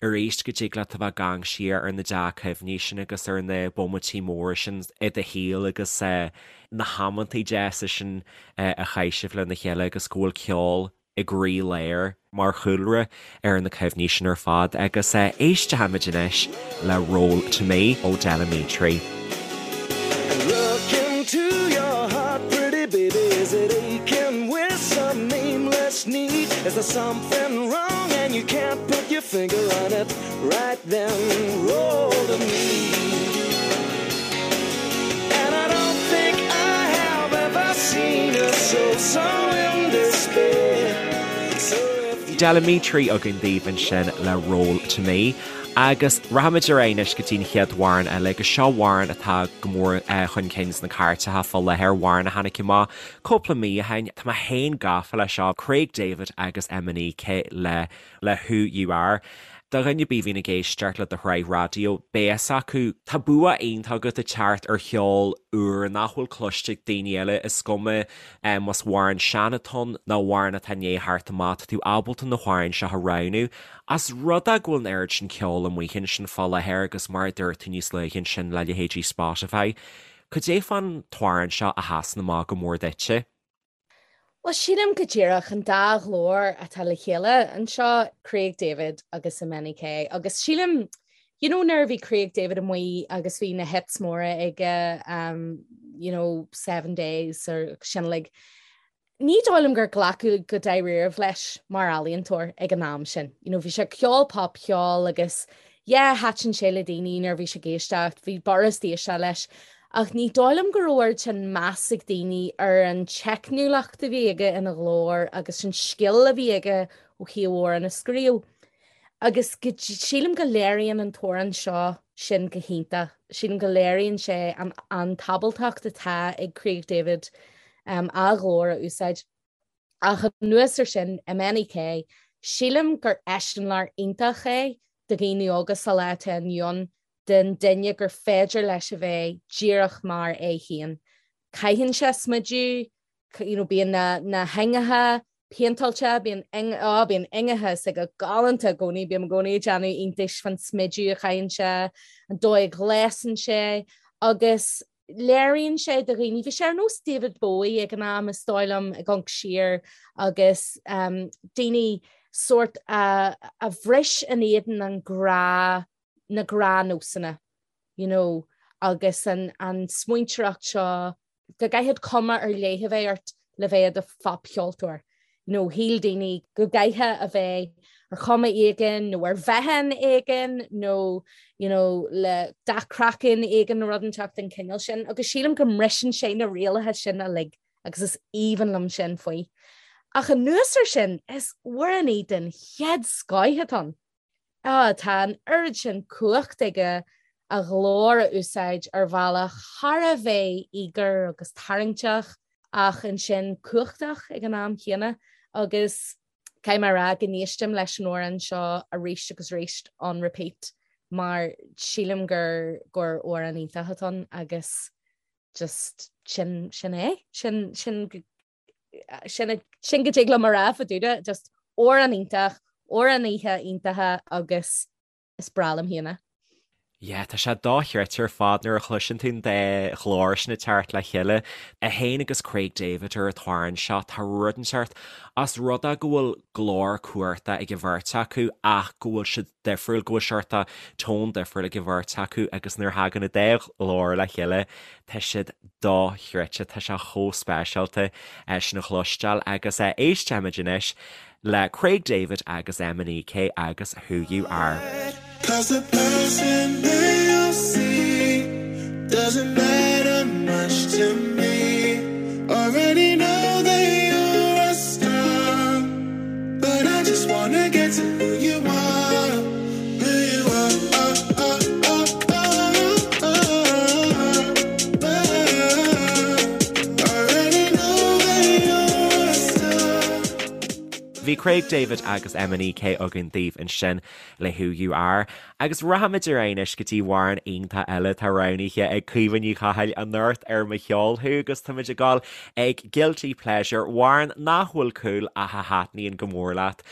Arís go dtig leat a bheith ag amharc siar ar na dea-chuimhní sin agus ar na bomaití móra sin i do shaol agus na hamantaí deasa sin a chaith sibh lena chéile agus go bhfuil ceol i gcroí-lár mar chúlra ar na cuimhní sin ar fad agus éistfimid anois le Roll to Me ó Del Amitri. Look into your heart, pretty baby, is it aching with some nameless need? Is there something wrong and you can't put your finger on it? Right then, roll to me. And I don't think I have ever seen a soul so in despair. So if you Del Amitri againn daoibh ansin le Roll to Me. Agus rachaimid ar aghaidh anois go dtí an chéad amhrán eile, agus seo amhrán atá go mór chun cinn sna cairteacha fá láthair, amhrán a tháinig amach cúpla mí ó shin. Tá mé féin gafa leis seo, Craig David agus MNEK le le Who You Are. Do dhuine ar bith a bhíonn ag éisteacht le do shraith raidió, beidh fhios acu, tá bua iontach agat ag teacht ar cheol úr nach bhfuil cloiste ag daoine eile, is cuma más amhrán sean atá ann nó amhrán atá i ndiaidh theacht amach, tá tú ábalta na hamhráin seo a roghnú. Ós rud é go bhfuil an oiread sin ceoil amuigh ansin fá láthair agus mar a dúirt tú níos luaithe ansin le leithéidí Spotify, cad é fán t-amhrán seo a sheasann amach go mór duitse? Bhuel, sílim go díreach an dá ghlór atá le chéile anseo, Craig David agus MNEK, agus sílim, you know, nuair a bhí Craig David amuigh agus bhí na hits móra aige, um, you know, Seven Days or sin like, Ní dóigh liom gur glacadh go dáiríribh leis mar ealaíontóir ag an am sin. You know, bhí sé ag ceol popcheol agus yeah, thaitin sé le daoine nuair a bhí sé ag éisteacht, bhí b'fhurast éisteacht leis. Ach ní dóigh liom go raibh oiread sin meas ag daoine ar an teicniúlacht a bhí aige ina ghlór agus an scil a bhí aige ó thaobh amhrán a scríobh. Agus go, sílim go léiríonn an t-amhrán seo sin go hiontach. Sílim go léiríonn sé an, an t-ábaltacht atá ag Craig David um, a ghlór a úsáid. Ach anuas ar sin, MNEK, sílim gur eiseamláir iontach é do dhaoine óga sa lá atá inniu ann den duine gur féidir leis a bheith díreach mar é féin. Caitheann sé smideadh, you know, bíonn na, na hingeacha péinteáilte, bíonn oh, bíonn ingeacha s'aige galánta i gcónaí, bím i gcónaí ag déanamh iontais fán smideadh a chaitheann sé, an dóigh a ghléasann sé agus léiríonn sé do dhaoine, bhí sé ar nós David Bowie ag an am is dóigh liom ag amharc siar agus um, daoine sórt a, a bhris in éadan an ghnáth, na gnáthnósanna, you know, agus an, an smaointeoireacht seo go gcaithfidh cuma ar leith a bheith ort le bheith i do phopcheoltóir. You know, shíl daoine go gcaithfeá a bheith ar chuma éigin nó ar mheáchan éigin nó you know, le dath craicinn éigin nó rud inteacht den chineál sin agus sílim go mbriseann sé na rialacha sin uilig agus is aoibhinn liom sin faoi. Ach anuas ar sin, is amhránaí den chéad scoith atá ann. Ah, tá an oiread sin cumhacht aige a ghlór a úsáid ar bhealach thar a bheith íogair agus tarraingteach ach ansin cumhachtach ag an am chéanna agus caithfidh mé a rá go n-éistim leis an amhrán seo arís agus arís on repeat mar sílim gur gur amhrán iontach atá ann agus just sin sin é sin sin sin sin go dtig liom a rá fá dtaobh de, just amhrán iontach, amhránaithe iontacha agus is breá liom féin é. Yeah, tá sé dochreidte ar fad nuair a chloiseann tú an dá ghlór sin ag teacht le chéile. É féin agus Craig David ar an t-amhrán seo, tá rud inteacht ós rud é go bhfuil glór cumhachtach ag an bheirt acu ach go bhfuil siad difriúil, go bhfuil seort tone difriúil ag an bheirt acu agus nuair a thagann an dá ghlór le chéile, tá siad dochreidte, tá sé chomh speisialta sin a chloisteáil agus éistfimid anois le Craig David agus MNEK agus Who You Are. Cause the person they all see doesn't matter much to me Already know that you're a star But I just wanna get to who you are Who you are Already know that you're a star Bhí Craig David agus MNEK againn daoibh ansin le Who You Are. Agus rachaimid ar aghaidh anois go dtí amhrán iontach eile atá roghnaithe ag Caoimhe Ní Chathail anocht ar Mo Cheol Thú agus táimid ag dul ag Guilty Pleasure, amhrán nach bhfuil cool ach a thaitníonn go mór leat.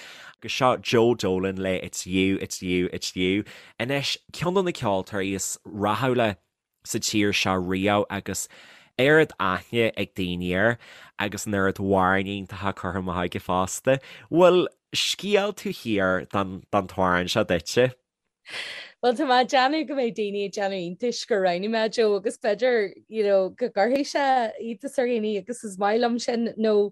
Agus seo Joe Dolan le It's You, It's You, It's You. Anois, ceann de na ceoltóirí is rathúla sa tír seo riamh agus oiread aithne ag daoine air agus an oiread amhráin iontacha curtha amach aige fosta. Bhfuil scéal taobh thiar den t-amhrán seo duitse? Bhuel tá mé ag déanamh go mbeidh daoine ag déanamh iontais gur roghnaigh mé Joe agus b'fhéidir you know, go gcuirfidh sé iontas ar dhaoine agus is maith liom sin nó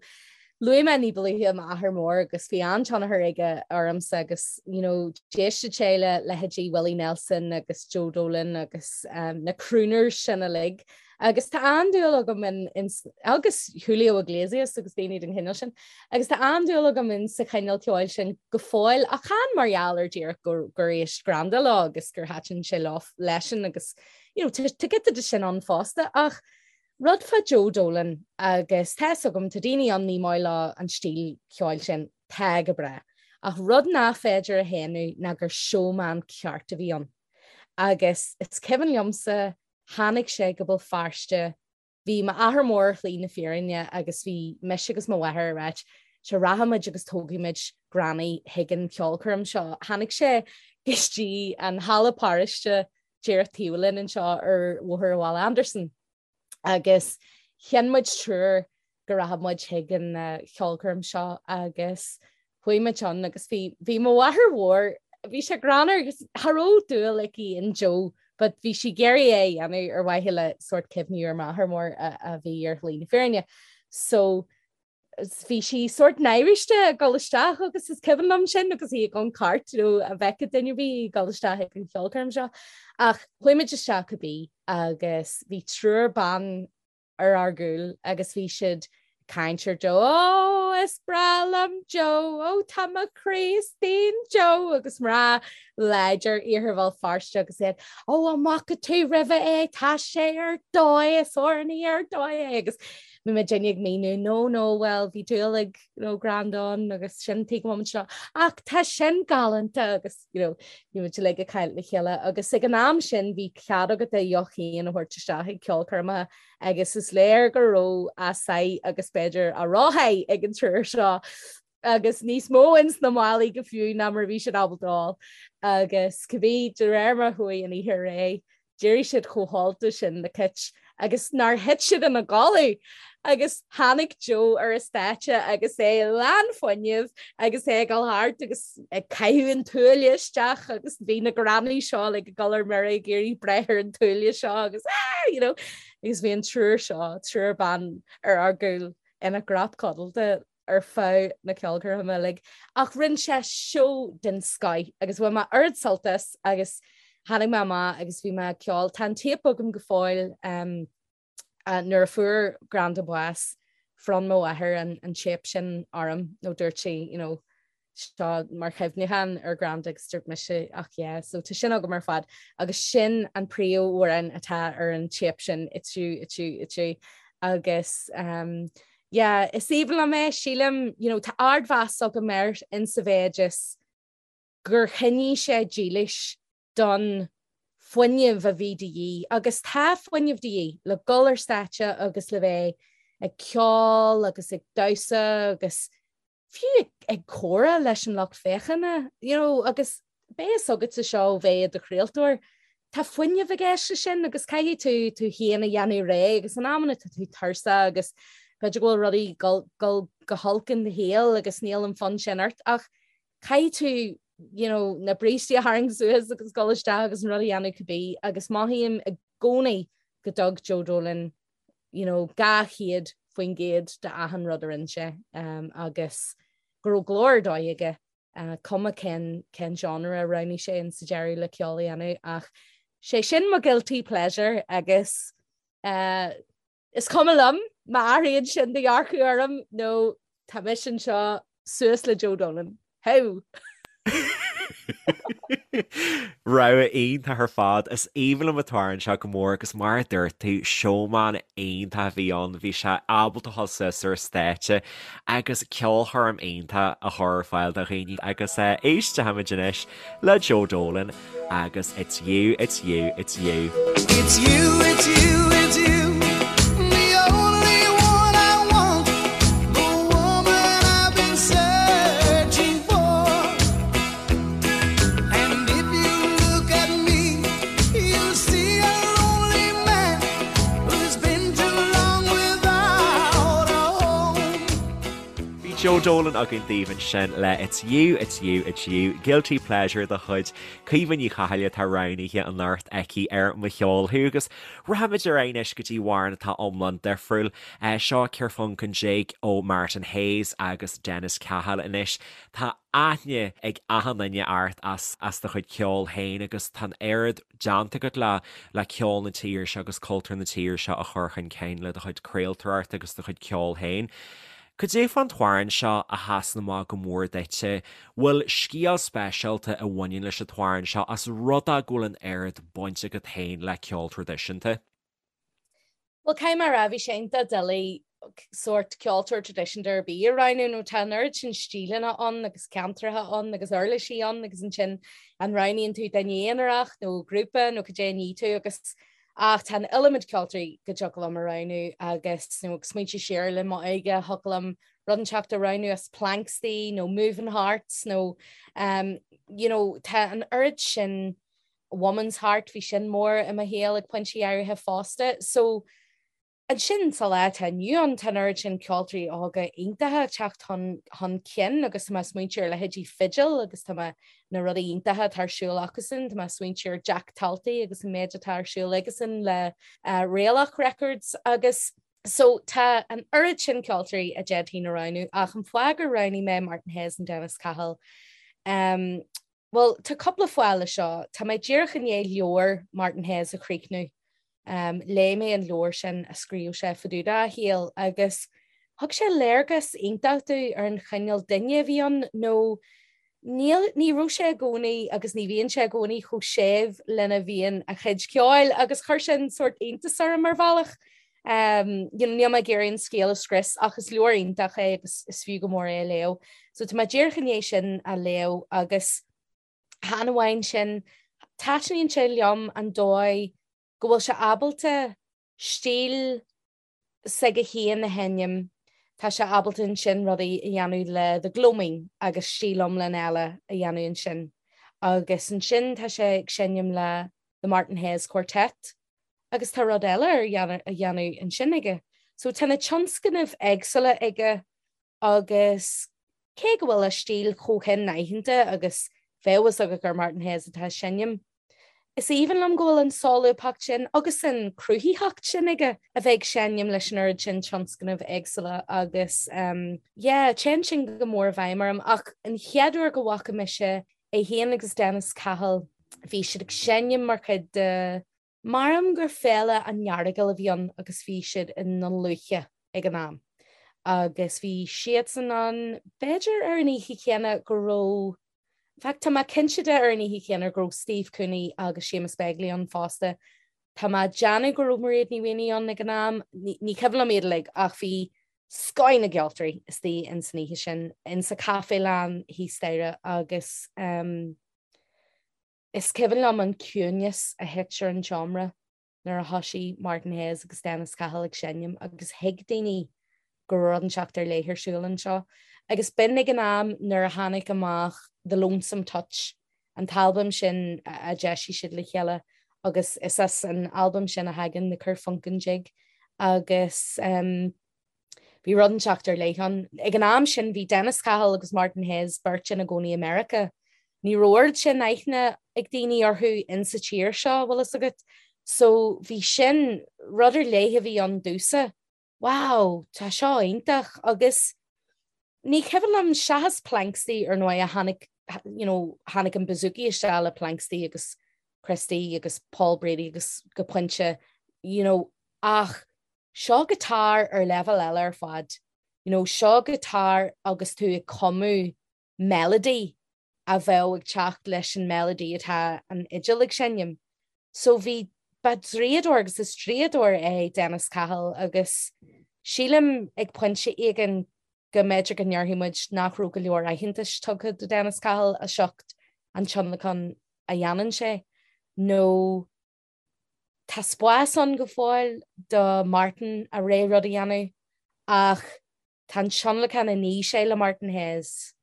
Luaigh mé ní ba luaithe m'athair mór agus bhí an-tionchar aige ormsa agus you know, d'éisteadh sé le leithéidí Willie Nelson agus Joe Dolan agus um, na crooners sin uilig. Agus tá an-dúil agam in, in, agus Julio Iglesias agus daoine den chineál sin. Agus tá an-dúil agam in sa chineál ceoil sin go fóill ach chan mar gheall ar díreach gur, gur éist Granda leo agus gur thaitin sé leo leisean agus you know, tá giota de sin ann fosta ach Rud fá Joe Dolan agus tá fhios agam, tá daoine ann ní maith leo an stíl cheoil sin, tá go breá. Ach rud nach féidir a shéanadh ná gur showman ceart a bhí ann. Agus is cuimhin liomsa, tháinig sé go Béal Feirste, bhí m'athair mór ar shlí na fírinne agus bhí mise agus mo mháthair ag ráit, sure rachaimid agus tógfaimid Granny chuig an cheolchoirm seo. Tháinig sé go dtí an halla paráiste díreach taobh linn anseo ar Bhóthar Bhaile Andarsan agus chinn muid triúr go rachadh muid chuig an cheolchoirm seo agus chuaigh muid ann agus bhí bhí mo mháthair mhór bhí sé greannmhar agus cha raibh dúil aici in Joe but bhí sí ag iarraidh é a dhéanamh ar mhaithe le sórt cuimhniú ar m'athair mór a, a bhí ar shlí na fírinne. So bhí sí sórt náiriste ag dul isteach agus is cuimhin liom sin agus í ag an cairt nó a bhfeicfeadh duine ar bith ag dul isteach ag an cheolchoirm seo. Ach chuaigh muid isteach cibé agus bhí triúr ban ar ár gcúl agus bhí siad ag caint ar Joe, Ó, is breá liom Joe, ó tá mo chroí istigh in Joe agus mná láidir iarthar Bhéal Feirste agus iad, Ó an bhfaca tú roimhe é, tá sé ar dóigh, is amhránaí ar dóigh é agus Bhí muidinne ag míniú, no, no, bhuel, bhí dúil ag, you know, Granda ann agus sin tuige go bhfuil muid anseo. Ach tá sin galánta agus, you know, bhí muid uilig ag caint le chéile agus ag an am sin bhí cead agat do dheoch féin a thabhairt isteach ag ceolchoirmeacha agus is léir go raibh a sáith agus b'fhéidir a rósháith ag an triúr seo agus níos mó ins na málaí go fiú ná mar a bhí siad ábalta ól. Agus cibé, de réir mar a chuaigh an oíche ar aghaidh, d'éirigh siad chomh hólta sin le cit agus nár thit siad ina gcodladh! Agus tháinig Joe ar an stáitse agus é lán fuinnimh agus é ag dul thart agus ag caitheamh an tuaille isteach agus bhí na grannaí seo like ag dul ar mire ag iarraidh breith ar an tuaille seo agus ah, you know, agus bhí an triúr seo, triúr ban ar ár gcúl ina gcrot codlata ar feadh na ceolchoirme uilig ach rinne sé seó den scoith agus bhain mé ard-sult as agus tháinig mé amach agus bhí mé ag ceol. Tá an téip agam go fóill um, uh, nuair a fuair Granda bás bhronn mo mháthair an, an téip sin orm nó dúirt sí you know, seo mar chuimhneachán ar Granda agus dúirt mise ach yeah, so tá sin agam ar fad agus sin an príomhamhrán atá ar an téip sin it's you, it's you, it's you agus um, yeah, is aoibhinn liom é, sílim, you know, tá ardmheas agam air in sa mhéid is gur choinnigh sé dílis don fuinneamh a bhí de dhíth agus tá fuinneamh de dhíth le dul ar stáitse agus le bheith ag ceol agus ag damhsa agus fiú ag comhrá leis an lucht féachana, you know, agus beidh fhios agatsa seo ó bheith i do chraoltóir. Tá fuinneamh i gceist leis sin agus caithfidh tú tú féin a dhéanamh réidh agus in amanna tá tú tuirseach agus b'fhéidir go bhfuil rudaí ag dul go holc in do shaol agus níl an fonn sin ort ach caithfidh tú you know, na brístí a tharraingt suas agus dul isteach agus an rud a dhéanamh cibé agus mothaím i gcónaí go dtug Joe Dolan you know, 200% de achan rud a rinne sé um, agus go raibh glór ar dóigh aige cuma cén cén genre a roghnaigh sé in sa deireadh le ceol a dhéanamh ach sé sin mo guilty pleasure agus uh, is cuma liom má athraíonn sin do dhearcadh orm nó tá mise anseo suas le Joe Dolan. How? Rogha iontach ar fad. Is aoibhinn liom an t-amhrán seo go mór agus mar a dúirt tú, showman iontach a bhí ann. Bhí sé ábalta dhul suas ar stáitse agus ceolchoirm iontach a chur ar fáil do dhaoine agus éistfimid anois le Joe Dolan agus It's You, It's You, It's You. It's you, it's you, it's you, the only one I want, the woman I've been searching for. And if you look at me, you'll see a lonely man who's been too long without a home. Bhí Joe Dolan againn daoibh ansin le It's You, It's You, It's You, Guilty Pleasure de chuid Caoimhe Ní Chathail atá roghnaithe anocht aici ar Mo Cheol Thú agus rachaimid ar aghaidh anois go dtí amhrán atá iomlán difriúil. Seo Kerfunken Jig ó Martin Hayes agus Dennis Cahill anois. Tá aithne ag achan duine ort as as do chuid ceoil féin agus tá an oiread déanta agat le le ceol na tíre seo agus cultúr na tíre seo a chur chun cinn le do chuid craoltóireachta agus do chuid ceoil féin. Cad é fán t-amhrán seo a sheasann amach go mór duitse? Bhfuil scéal speisialta a bhaineann leis an t-amhrán seo as rud é go bhfuil an oiread baint agat féin le ceol traidisiúnta? Bhuel, caithfidh mé a rá, bhí sé iontach doiligh sórt ceoltóir traidisiúnta ar bith a roghnú nó tá an oiread sin stíleanna ann agus ceantracha ann agus uirlisí ann agus ansin an roghnaíonn tú duine aonarach nó grúpa nó cad é a ní tú agus ach tá an iliomad ceoltóirí go dtiocfadh liom a roghnú agus nó ag smaointiú siar le m'óige thiocfadh liom rud inteacht a roghnú as Planxty nó Moving Hearts nó um, you know, tá an oiread sin Woman's Heart, bhí sin mór i mo shaol ag pointí áirithe fosta. So, ansin sa lá atá inniu ann, tá an oiread sin ceoltóirí óga iontacha ag teacht chun, chun cinn agus tá mé ag smaointiú ar leithéidí Fidil agus tá mé na rudaí iontacha atá ar siúl acusan, tá mé ag smaointiú ar Jack Talty agus an méid atá ar siúl aigesan le uh, Réalach Records agus So tá an oiread sin ceoltóirí a d'fhéadfainn a roghnú ach an fáth gur roghnaigh mé Martin Hayes and Dennis Cahill um, Bhuel, tá cúpla fáth le seo. Tá mé díreach i ndiaidh leabhar Martin Hayes a chríochnú. Léigh mé an leabhar sin a scríobh sé fá dtaobh dá shaol agus thug sé léargas iontach domh ar an chineál duine a bhí ann nó níl, ní raibh sé i gcónaí agus ní bhíonn sé i gcónaí chomh séimh lena bhíonn a chuid ceoil agus chuir sin sórt iontas orm ar bhealach. Um, you know, níl mé ag iarraidh an scéal a scrios ach is leabhar iontach é agus is fiú go mór é a léamh. So tá mé díreach i ndiaidh sin a léamh agus chan amháin sin, taitníonn sé liom an dóigh go bhfuil sé ábalta stíl s'aige féin a sheinm, tá sé ábalta ansin rudaí a dhéanamh le The Gloaming agus stíl iomlán eile a dhéanamh ansin. Agus ansin tá sé ag seinm le The Martin Hayes Quartet agus tá rud eile ar a dhéanamh ansin aige. So tá na tionscnaimh éagsúla aige agus cé go bhfuil a stíl chomh hin-aitheanta agus bheadh a fhios agat gur Martin Hayes atá ag seinm, is aoibhinn liom go bhfuil an solúbthacht sin agus an cruthaitheacht sin aige a bheith ag seinm leis an oiread sin tionscnaimh éagsúla agus yeah, téann sin go mór i bhfeidhm orm. Ach an chéad uair go bhfaca mise é féin agus Dennis Cahill, bhí siad ag seinm mar chuid de, Measaim gur Féile an Earagail a bhí ann agus bhí siad i nDún Lúiche ag an am agus bhí siadsan ann b'fhéidir ar an oíche chéanna go raibh, in fact tá mé cinnte de ar an oíche chéanna go raibh Steve Cooney agus Séamus Begley ann fosta. Tá mé ag déanamh go raibh Mairéad Ní Mhaonaigh ann ag an am, ní cuimhin liom iad uilig ach bhí scoth na gceoltóirí istigh ins an oíche sin, in sa Caifélann thíos staighre agus ehm, Is cuimhin liom an ciúnas a thit ar an tseomra nuair a thoisigh Martin Hayes agus Dennis Cahill ag seinm agus thuig daoine go raibh rud inteacht ar leith ar siúl anseo. Agus b'in ag an am nuair a tháinig amach The Lonesome Touch, an t-albam sin a d'eisigh siad le chéile. Agus is as an albam sin a thagann The Kerfunkin Jig agus um, bhí rud inteacht ar leith ann. Ag an am sin bhí Dennis Cahill agus Martin Hayes beirt ina gcónaí i Meiriceá. Ní raibh oiread sin aithne ag daoine orthu insa tír seo, bhfuil fhios agat. So bhí sin, rud ar leith a bhí ann domhsa. Wow, tá seo iontach agus ní cuimhin liom seachas Planxty ar ndóigh a tháinig, you know, tháinig an bouzouki isteach le Planxty agus Christy agus Paul Brady agus go pointe, you know, ach seo guitar ar leibhéal eile ar fad. You know, seo guitar agus tú ag cumadh melody a bheadh ag teacht leis an melody atá an fhidil ag seinm. So bhí, ba draíodóir agus is draíodóir é Dennis Cahill agus sílim ag pointe éigin go mb'fhéidir go ndéarfaidh muid nach raibh go leor aitheantais tugtha do Dennis Cahill as ucht an tionlacan a dhéanann sé nó tá spás ann go fóill do Martin a rogha rud a dhéanamh ach Tá an tionlacan a ní sé le Martin Hayes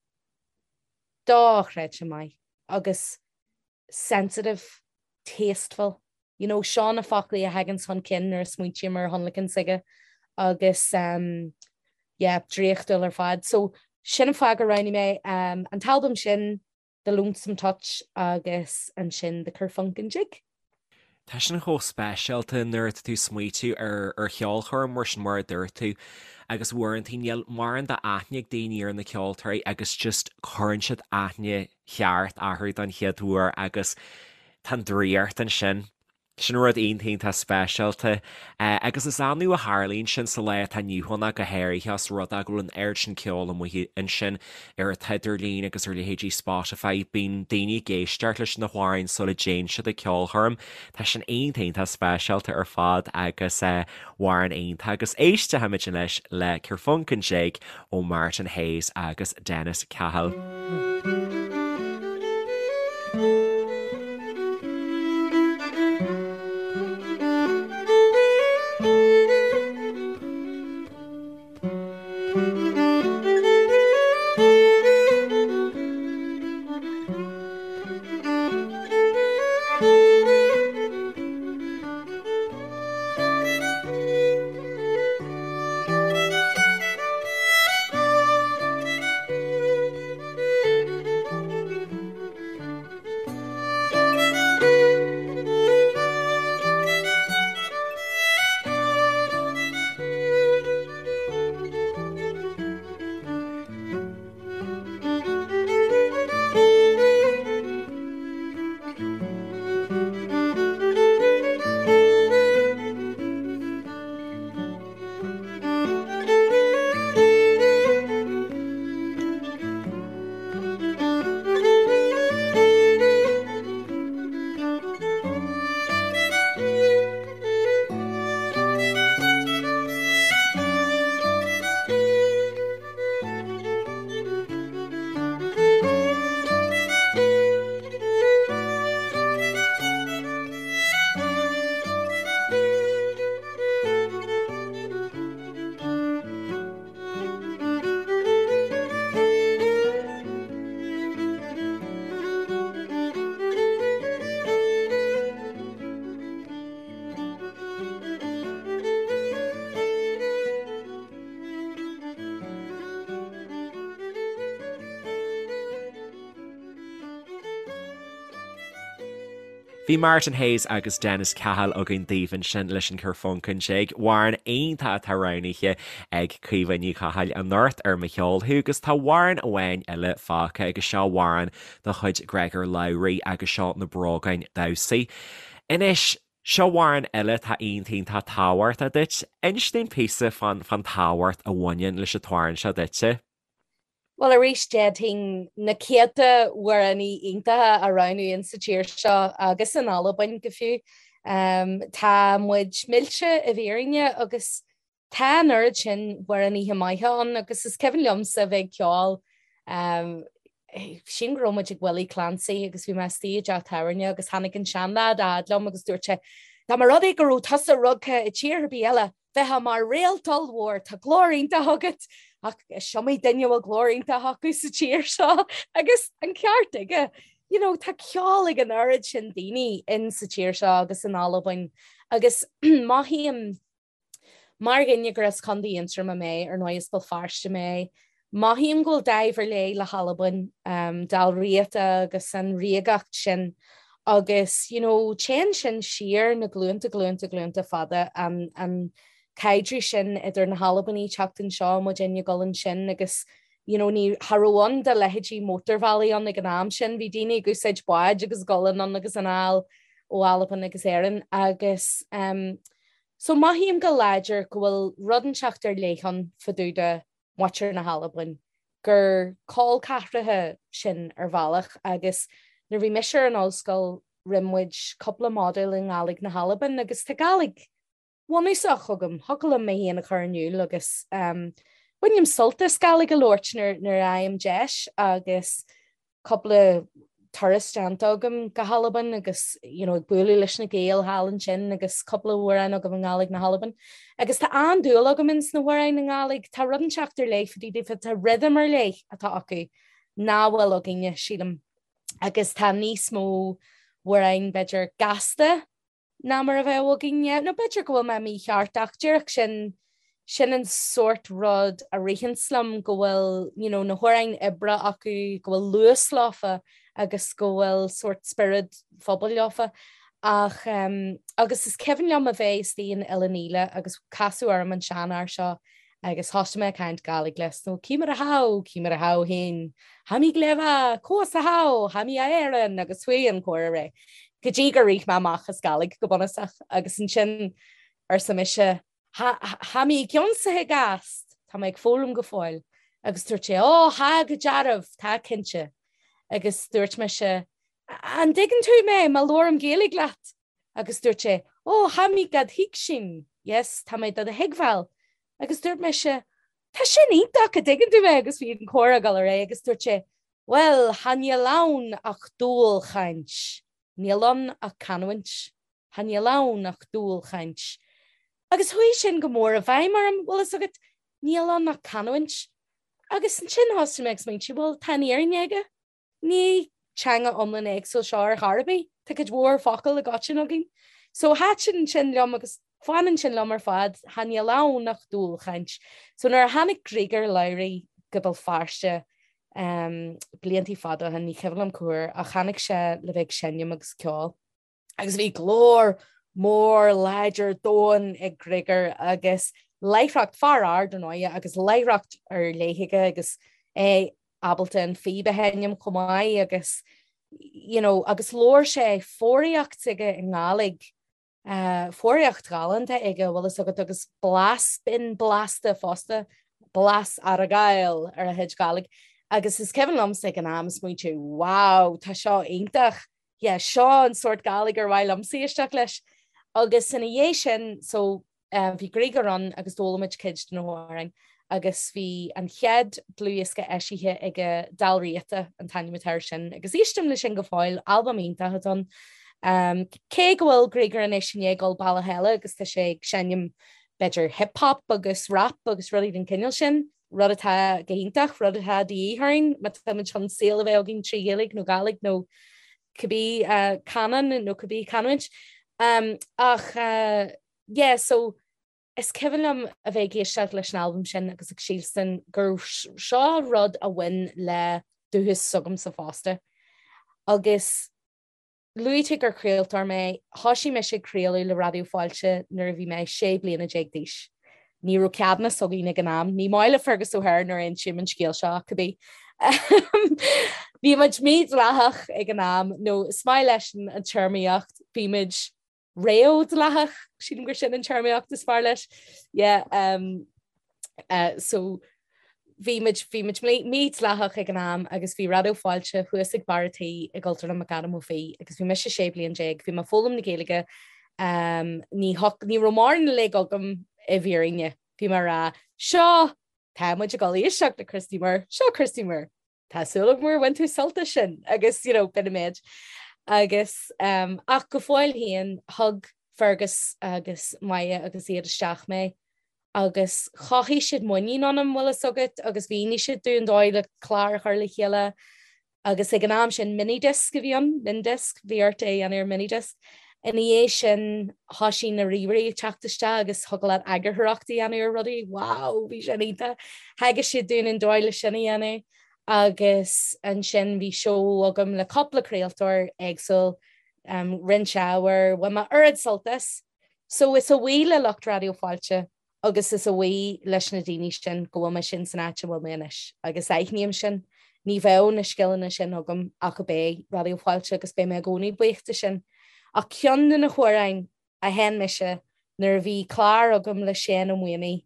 dochreidte maith agus sensitive, tasteful, you know, seo na foclaí a thaganns chun cinn nuair a smaointím ar thionlacan s'aige agus um, yeah, draíochtúil ar fad. So sin an fáth gur roghnaigh mé um, an t-albam sin The Lonesome Touch agus ansin The Kerfunkin Jig. Tá sin chomh speisialta nuair atá tú ag smaoitiú ar ar cheolchoirm mar sin mar a dúirt tú agus uaireanta níl mórán d'aithne ag daoine ar na ceoltóirí agus just cuireann siad aithne cheart orthu don chéad uair agus tá an draíocht ansin. Sin rud iontach iontach speisialta. Agus is annamh a tharlaíonn sin sa lá atá inniu ann ach go háirithe os rud é go bhfuil an oiread sin ceoil amuigh ansin ar an t-idirlíon agus ar leithéidí Spotify. Bíonn daoine ag éisteacht leis na hamhráin sula dtéann siad ag ceolchoirm. Tá sin iontach iontach speisialta ar fad agus amhrán iontach. Agus éistfimid anois le Kerfunkin Jig ó Martin Hayes agus Dennis Cahill. Bhí Martin Hayes agus Dennis Cahill againn daoibh ansin leis an Kerfunkin Jig, amhrán iontach atá roghnaithe ag Caoimhe Ní Chathail anocht ar Mo Cheol Thú agus tá amhrán amháin eile fágtha agus seo amhrán de chuid Gregor Lowry agus seo Na Brógáin Damhsa. Anois, seo amhrán eile atá iontach iontach tábhachtach duit. Inis dúinn píosa fán fán tábhacht a bhaineann leis an t-amhrán seo duitse. Bhuel, arís, d'fhéadfainn na céadta amhránaí iontacha a roghnú insa tír seo agus in Albain go fiú. Tá muid millte i bhfírinne agus tá an oiread sin amhránaithe maithe ann agus is cuimhin liomsa a bheith ag ceol, sílim go raibh muid ag Willie Clancy agus bhí mé istigh i dteach tábhairne agus tháinig an seanleaid a fhad liom agus dúirt sé, dá mba rud é go raibh tusa rugtha i tír ar bith eile, Bheifeá mar réalt ollmhór, tá glór iontach agat, ach is iomaí duine a bhfuil glór iontach acu sa tír seo agus an ceart aige. you know, tá ceol ag an oiread sin daoine in sa tír seo agus in Albain agus mothaím Mar dhuine gur as Contae Aontroma mé, ar ndóigh as Béal Feirste mé, mothaím go bhfuil dáimh ar leith le hAlbain, Dál Riata agus an ríogacht sin agus you know téann sin siar na glúnta glúnta glúnta fada, an an caidreamh sin idir na hAlbanaigh teacht anseo, muidinne ag dul ansin agus you know ní cha raibh ann do leithéidí mótarbhealaí ann ag an am sin, bhí daoine ag úsáid báid agus ag dul anonn agus anall ó Albain agus Éirinn agus um, So mothaím go láidir go bhfuil rud inteacht ar leith ann fá dtaobh de mhuintir na hAlban, gur col ceathracha sinn ar bhealach agus nuair a bhí mise ar an ollscoil rinne muid cúpla modúl i nGàidhlig na hAlban agus tá Gàidhlig bhunúsach agam, thiocfadh liom mé féin a chur in iúl agus bainim sult as Gàidhlig a labhairt nuair a fhaighim deis agus cúpla turas déanta agam go hAlbain agus you know, ag bualadh leis na Gaeil thall ansin agus cúpla amhrán agam i nGàidhlig na hAlban. Agus tá an-dúil agam ins na hamhráin i nGàidhlig, tá rud inteacht ar leith fá dtaobh daofa, tá rhythm ar leith atá acu nach bhfuil againne, sílim. Agus tá níos mó amhráin b'fhéidir gasta ná mar a bheadh againne, nó b'fhéidir go bhfuil mé mícheart ach díreach sin, sin an sórt rud a ritheanns liom, go bhfuil you know na hamhráin oibre acu, go bhfuil luas leofa agus go bhfuil sórt spiorad phobail leofa. Ach um, agus is cuimhin liom a bheith istigh in Eilean Ila agus casadh orm an seanfhear seo Agus thosaigh mé ag caint Gàidhlig leis, nó Ciamar a tha thu, ciamar a tha thu fhèin, Tha mi gleibh, còs a tha thu, tha mi a Èireann, agus chuaigh an comhrá ar aghaidh, go dtí gur rith mé amach as Gàidhlig go bunúsach, agus ansin arsa mise, Tha mi ag ionnsachaidh ast, tá mé ag foghlaim go fóill, agus dúirt sé, Ó, tha go dearbh, tá cinnte. Agus dúirt mise, An dtuigeann tú mé má labhraím Gaeilge leat? Agus dúirt sé, Ó, tha mi dhad thuigsinn, yes, tá mé do do thuigbheáil. Agus dúirt mise, Tá sin iontach, an dtuigeann tú mé? Agus bhí an comhrá ag dul ar aghaidh agus dúirt sé, Bhuel, tha níl ann ach dùil-chainnt. Níl ann ach canúint. Tha níl ann ach dùil-chainnt. Agus chuaigh sin go mór i bhfeidhm orm, bhfuil fhios agat, níl ann ach canúint. Agus ansin thosaigh mé ag smaointiú, bhuel, tá an fhírinne aige. Ní teanga iomlán éagsúil seo ar chor ar bith, tá cuid mhór focal i gcoiteann againn. So thaitin sin liom agus fanann sin liom ar fad, tha níl ann ach dùil-chainnt. So nuair a tháinig Griogair Labhruidh go Béal Feirste um, bliantaí fada ó shin, ní cuimhin liom cá huair, ach tháinig sé le bheith ag seinm agus ceol. Agus bhí glór mór láidir domhain ag Griogair agus láithreacht, fear ard ar ndóigh, agus láithreacht ar leith aige agus é ábalta an phíb a sheinm chomh maith agus you know, agus labhair sé foghraíocht aige i nGàidhlig, uh, foghraíocht ghalánta aige bhfuil fhios agat agus blas binn blasta fosta, blas Argyle ar a chuid Gàidhlig. Agus is cuimhin liomsa ag an am smaointiú, wow, tá seo iontach, yeah, seo an sórt Gàidhlig ar mhaith liomsa éisteacht leis. Agus ina dhiaidh sin, so, um, bhí Griogair ann agus d'fhoghlaim muid cuid de na hamhráin agus bhí an chéad dlúthdhiosca eisithe aige Dal Riata an t-ainm atá air sin agus éistim leis sin go fóill, albam iontach atá ann. Um, cé go bhfuil Griogair anois i ndiaidh dul bealach eile agus tá sé ag seinm b'fhéidir hip-hop agus rap agus rudaí den chineál sin, rud atá go hiontach, rud atá de dhíth orainn má táimid chun saol a bheith againn trí Ghaeilge nó Gàidhlig nó cibé canán nó cibé canúint. Ach yeah, so is cuimhin liom a bheith ag éisteacht leis an albam sin agus ag sílstin gur seo rud a bhain le dúchas s'agamsa fosta. Agus Luaigh tú gur craoltóir mé. Thoisigh mise ag craoladh le Raidió Fáilte nuair a bhí mé 16 bliana d'aois. Ní raibh ceadúnas againn ag an am. Ní maith le Fergus O'Hare nuair a insím an scéal seo ach cibé. Bhí muid mídhleathach ag an am, nó is maith leis an téarmaíocht, bhí muid réamhdhleathach, sílim gur sin an téarmaíocht is fearr leis. Yeah, um, uh, so bhí muid bhí muid mídhleathach ag an am agus bhí Raidió Fáilte thuas ag barr an tí i gCultúrlann McAdam Ó Fiaich agus bhí mise 16 bliain, bhí mé ag foghlaim na Gaeilge um, ní, ní raibh mórán le agam i bhfírinne. Bhí mé ag rá seo tá muid ag dul éisteacht le Christy Moore, seo Christy Moore. Tá súil agam gur bhain tú sult as sin agus you know, b'in an méid. Agus um, ach go fóill féin thug Fergus agus Maja agus iad isteach mé agus chothaigh siad muinín ionam bhfuil fhios agat agus mhínigh siad dúinn an dóigh le clár a chur le chéile. Agus ag an am sin minidisc a bhí ann, mindisc, bhí ort é a dhéanamh ar minidisc. Ina dhiaidh sin thoisigh na ríomhairí ag teacht isteach agus thiocfadh leat eagarthóireacht a dhéanamh ar rudaí, wow, bhí sin iontach. Theagasc siad dúinn an dóigh le sin a dhéanamh agus ansin bhí seó agam le cúpla craoltóir éagsúil, roinnt ábhair, bhain mé oiread sult as. So is a bhuí le lucht Raidió Fáilte agus is a bhuí leis na daoine sin go bhfuil mise in san áit a bhfuil mé anois agus aithním sin. Ní bheadh na scileanna sin agam ach ab é Raidió Fáilte agus beidh mé i gcónaí buíoch de sin. Ach ceann de na hamhráin a sheinn mise nuair a bhí clár agam le Séan Ó Maonaigh,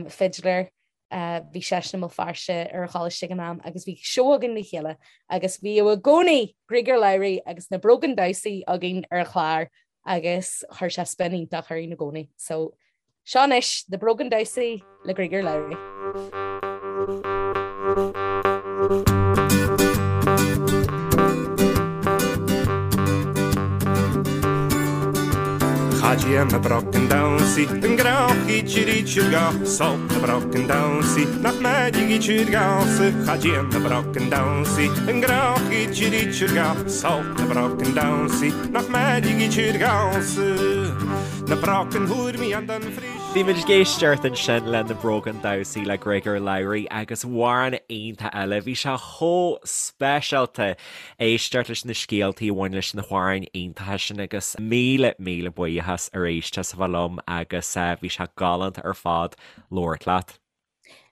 fidléir, bhí seisean i mBéal Feirste ar an choláiste ag an am agus bhí seó againn le chéile agus bhíodh i gcónaí Griogair Labhruidh agus na Brogan Damhsaí againn ar an chlár agus chuir sé spin iontach orainn i gcónaí. So seo anois na Brogan Damhsaí le Griogair Labhruidh. Cha dtéann na brocan damhsaí an grá Sult na brocan damhsaí nach mbeidh Cha dtéann na brocan damhsaí an grá Sult na brocan damhsaí nach mbeidh Na brocan thuairmí an don frí. Bhí muid ag éisteacht ansin le Na Brogan Damhsaí le Griogair Labhruidh agus amhrán iontach eile. Bhí sé chomh speisialta éisteacht leis na scéaltaí a bhain leis na hamhráin iontacha sin agus míle míle buíochas arís as a bheith liom agus bhí sé galánta ar fad labhairt leat.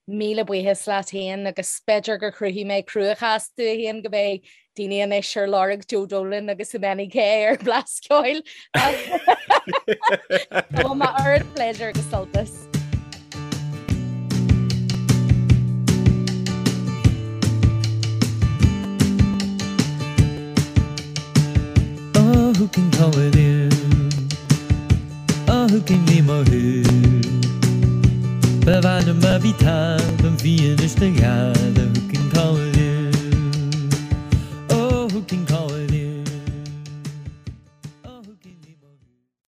Míle buíochas leat féin agus b'fhéidir gur chruthaigh mé cruachás domh féin go mbeidh daoine anois ar lorg Joe Dolan agus Imani K ar Blas Ceoil. Bhain mé oiread pléisiúr agus sult as. Oh, who can call it in? Oh, who can name a who? Ba bhain ma bhí tá an bhí is na gad.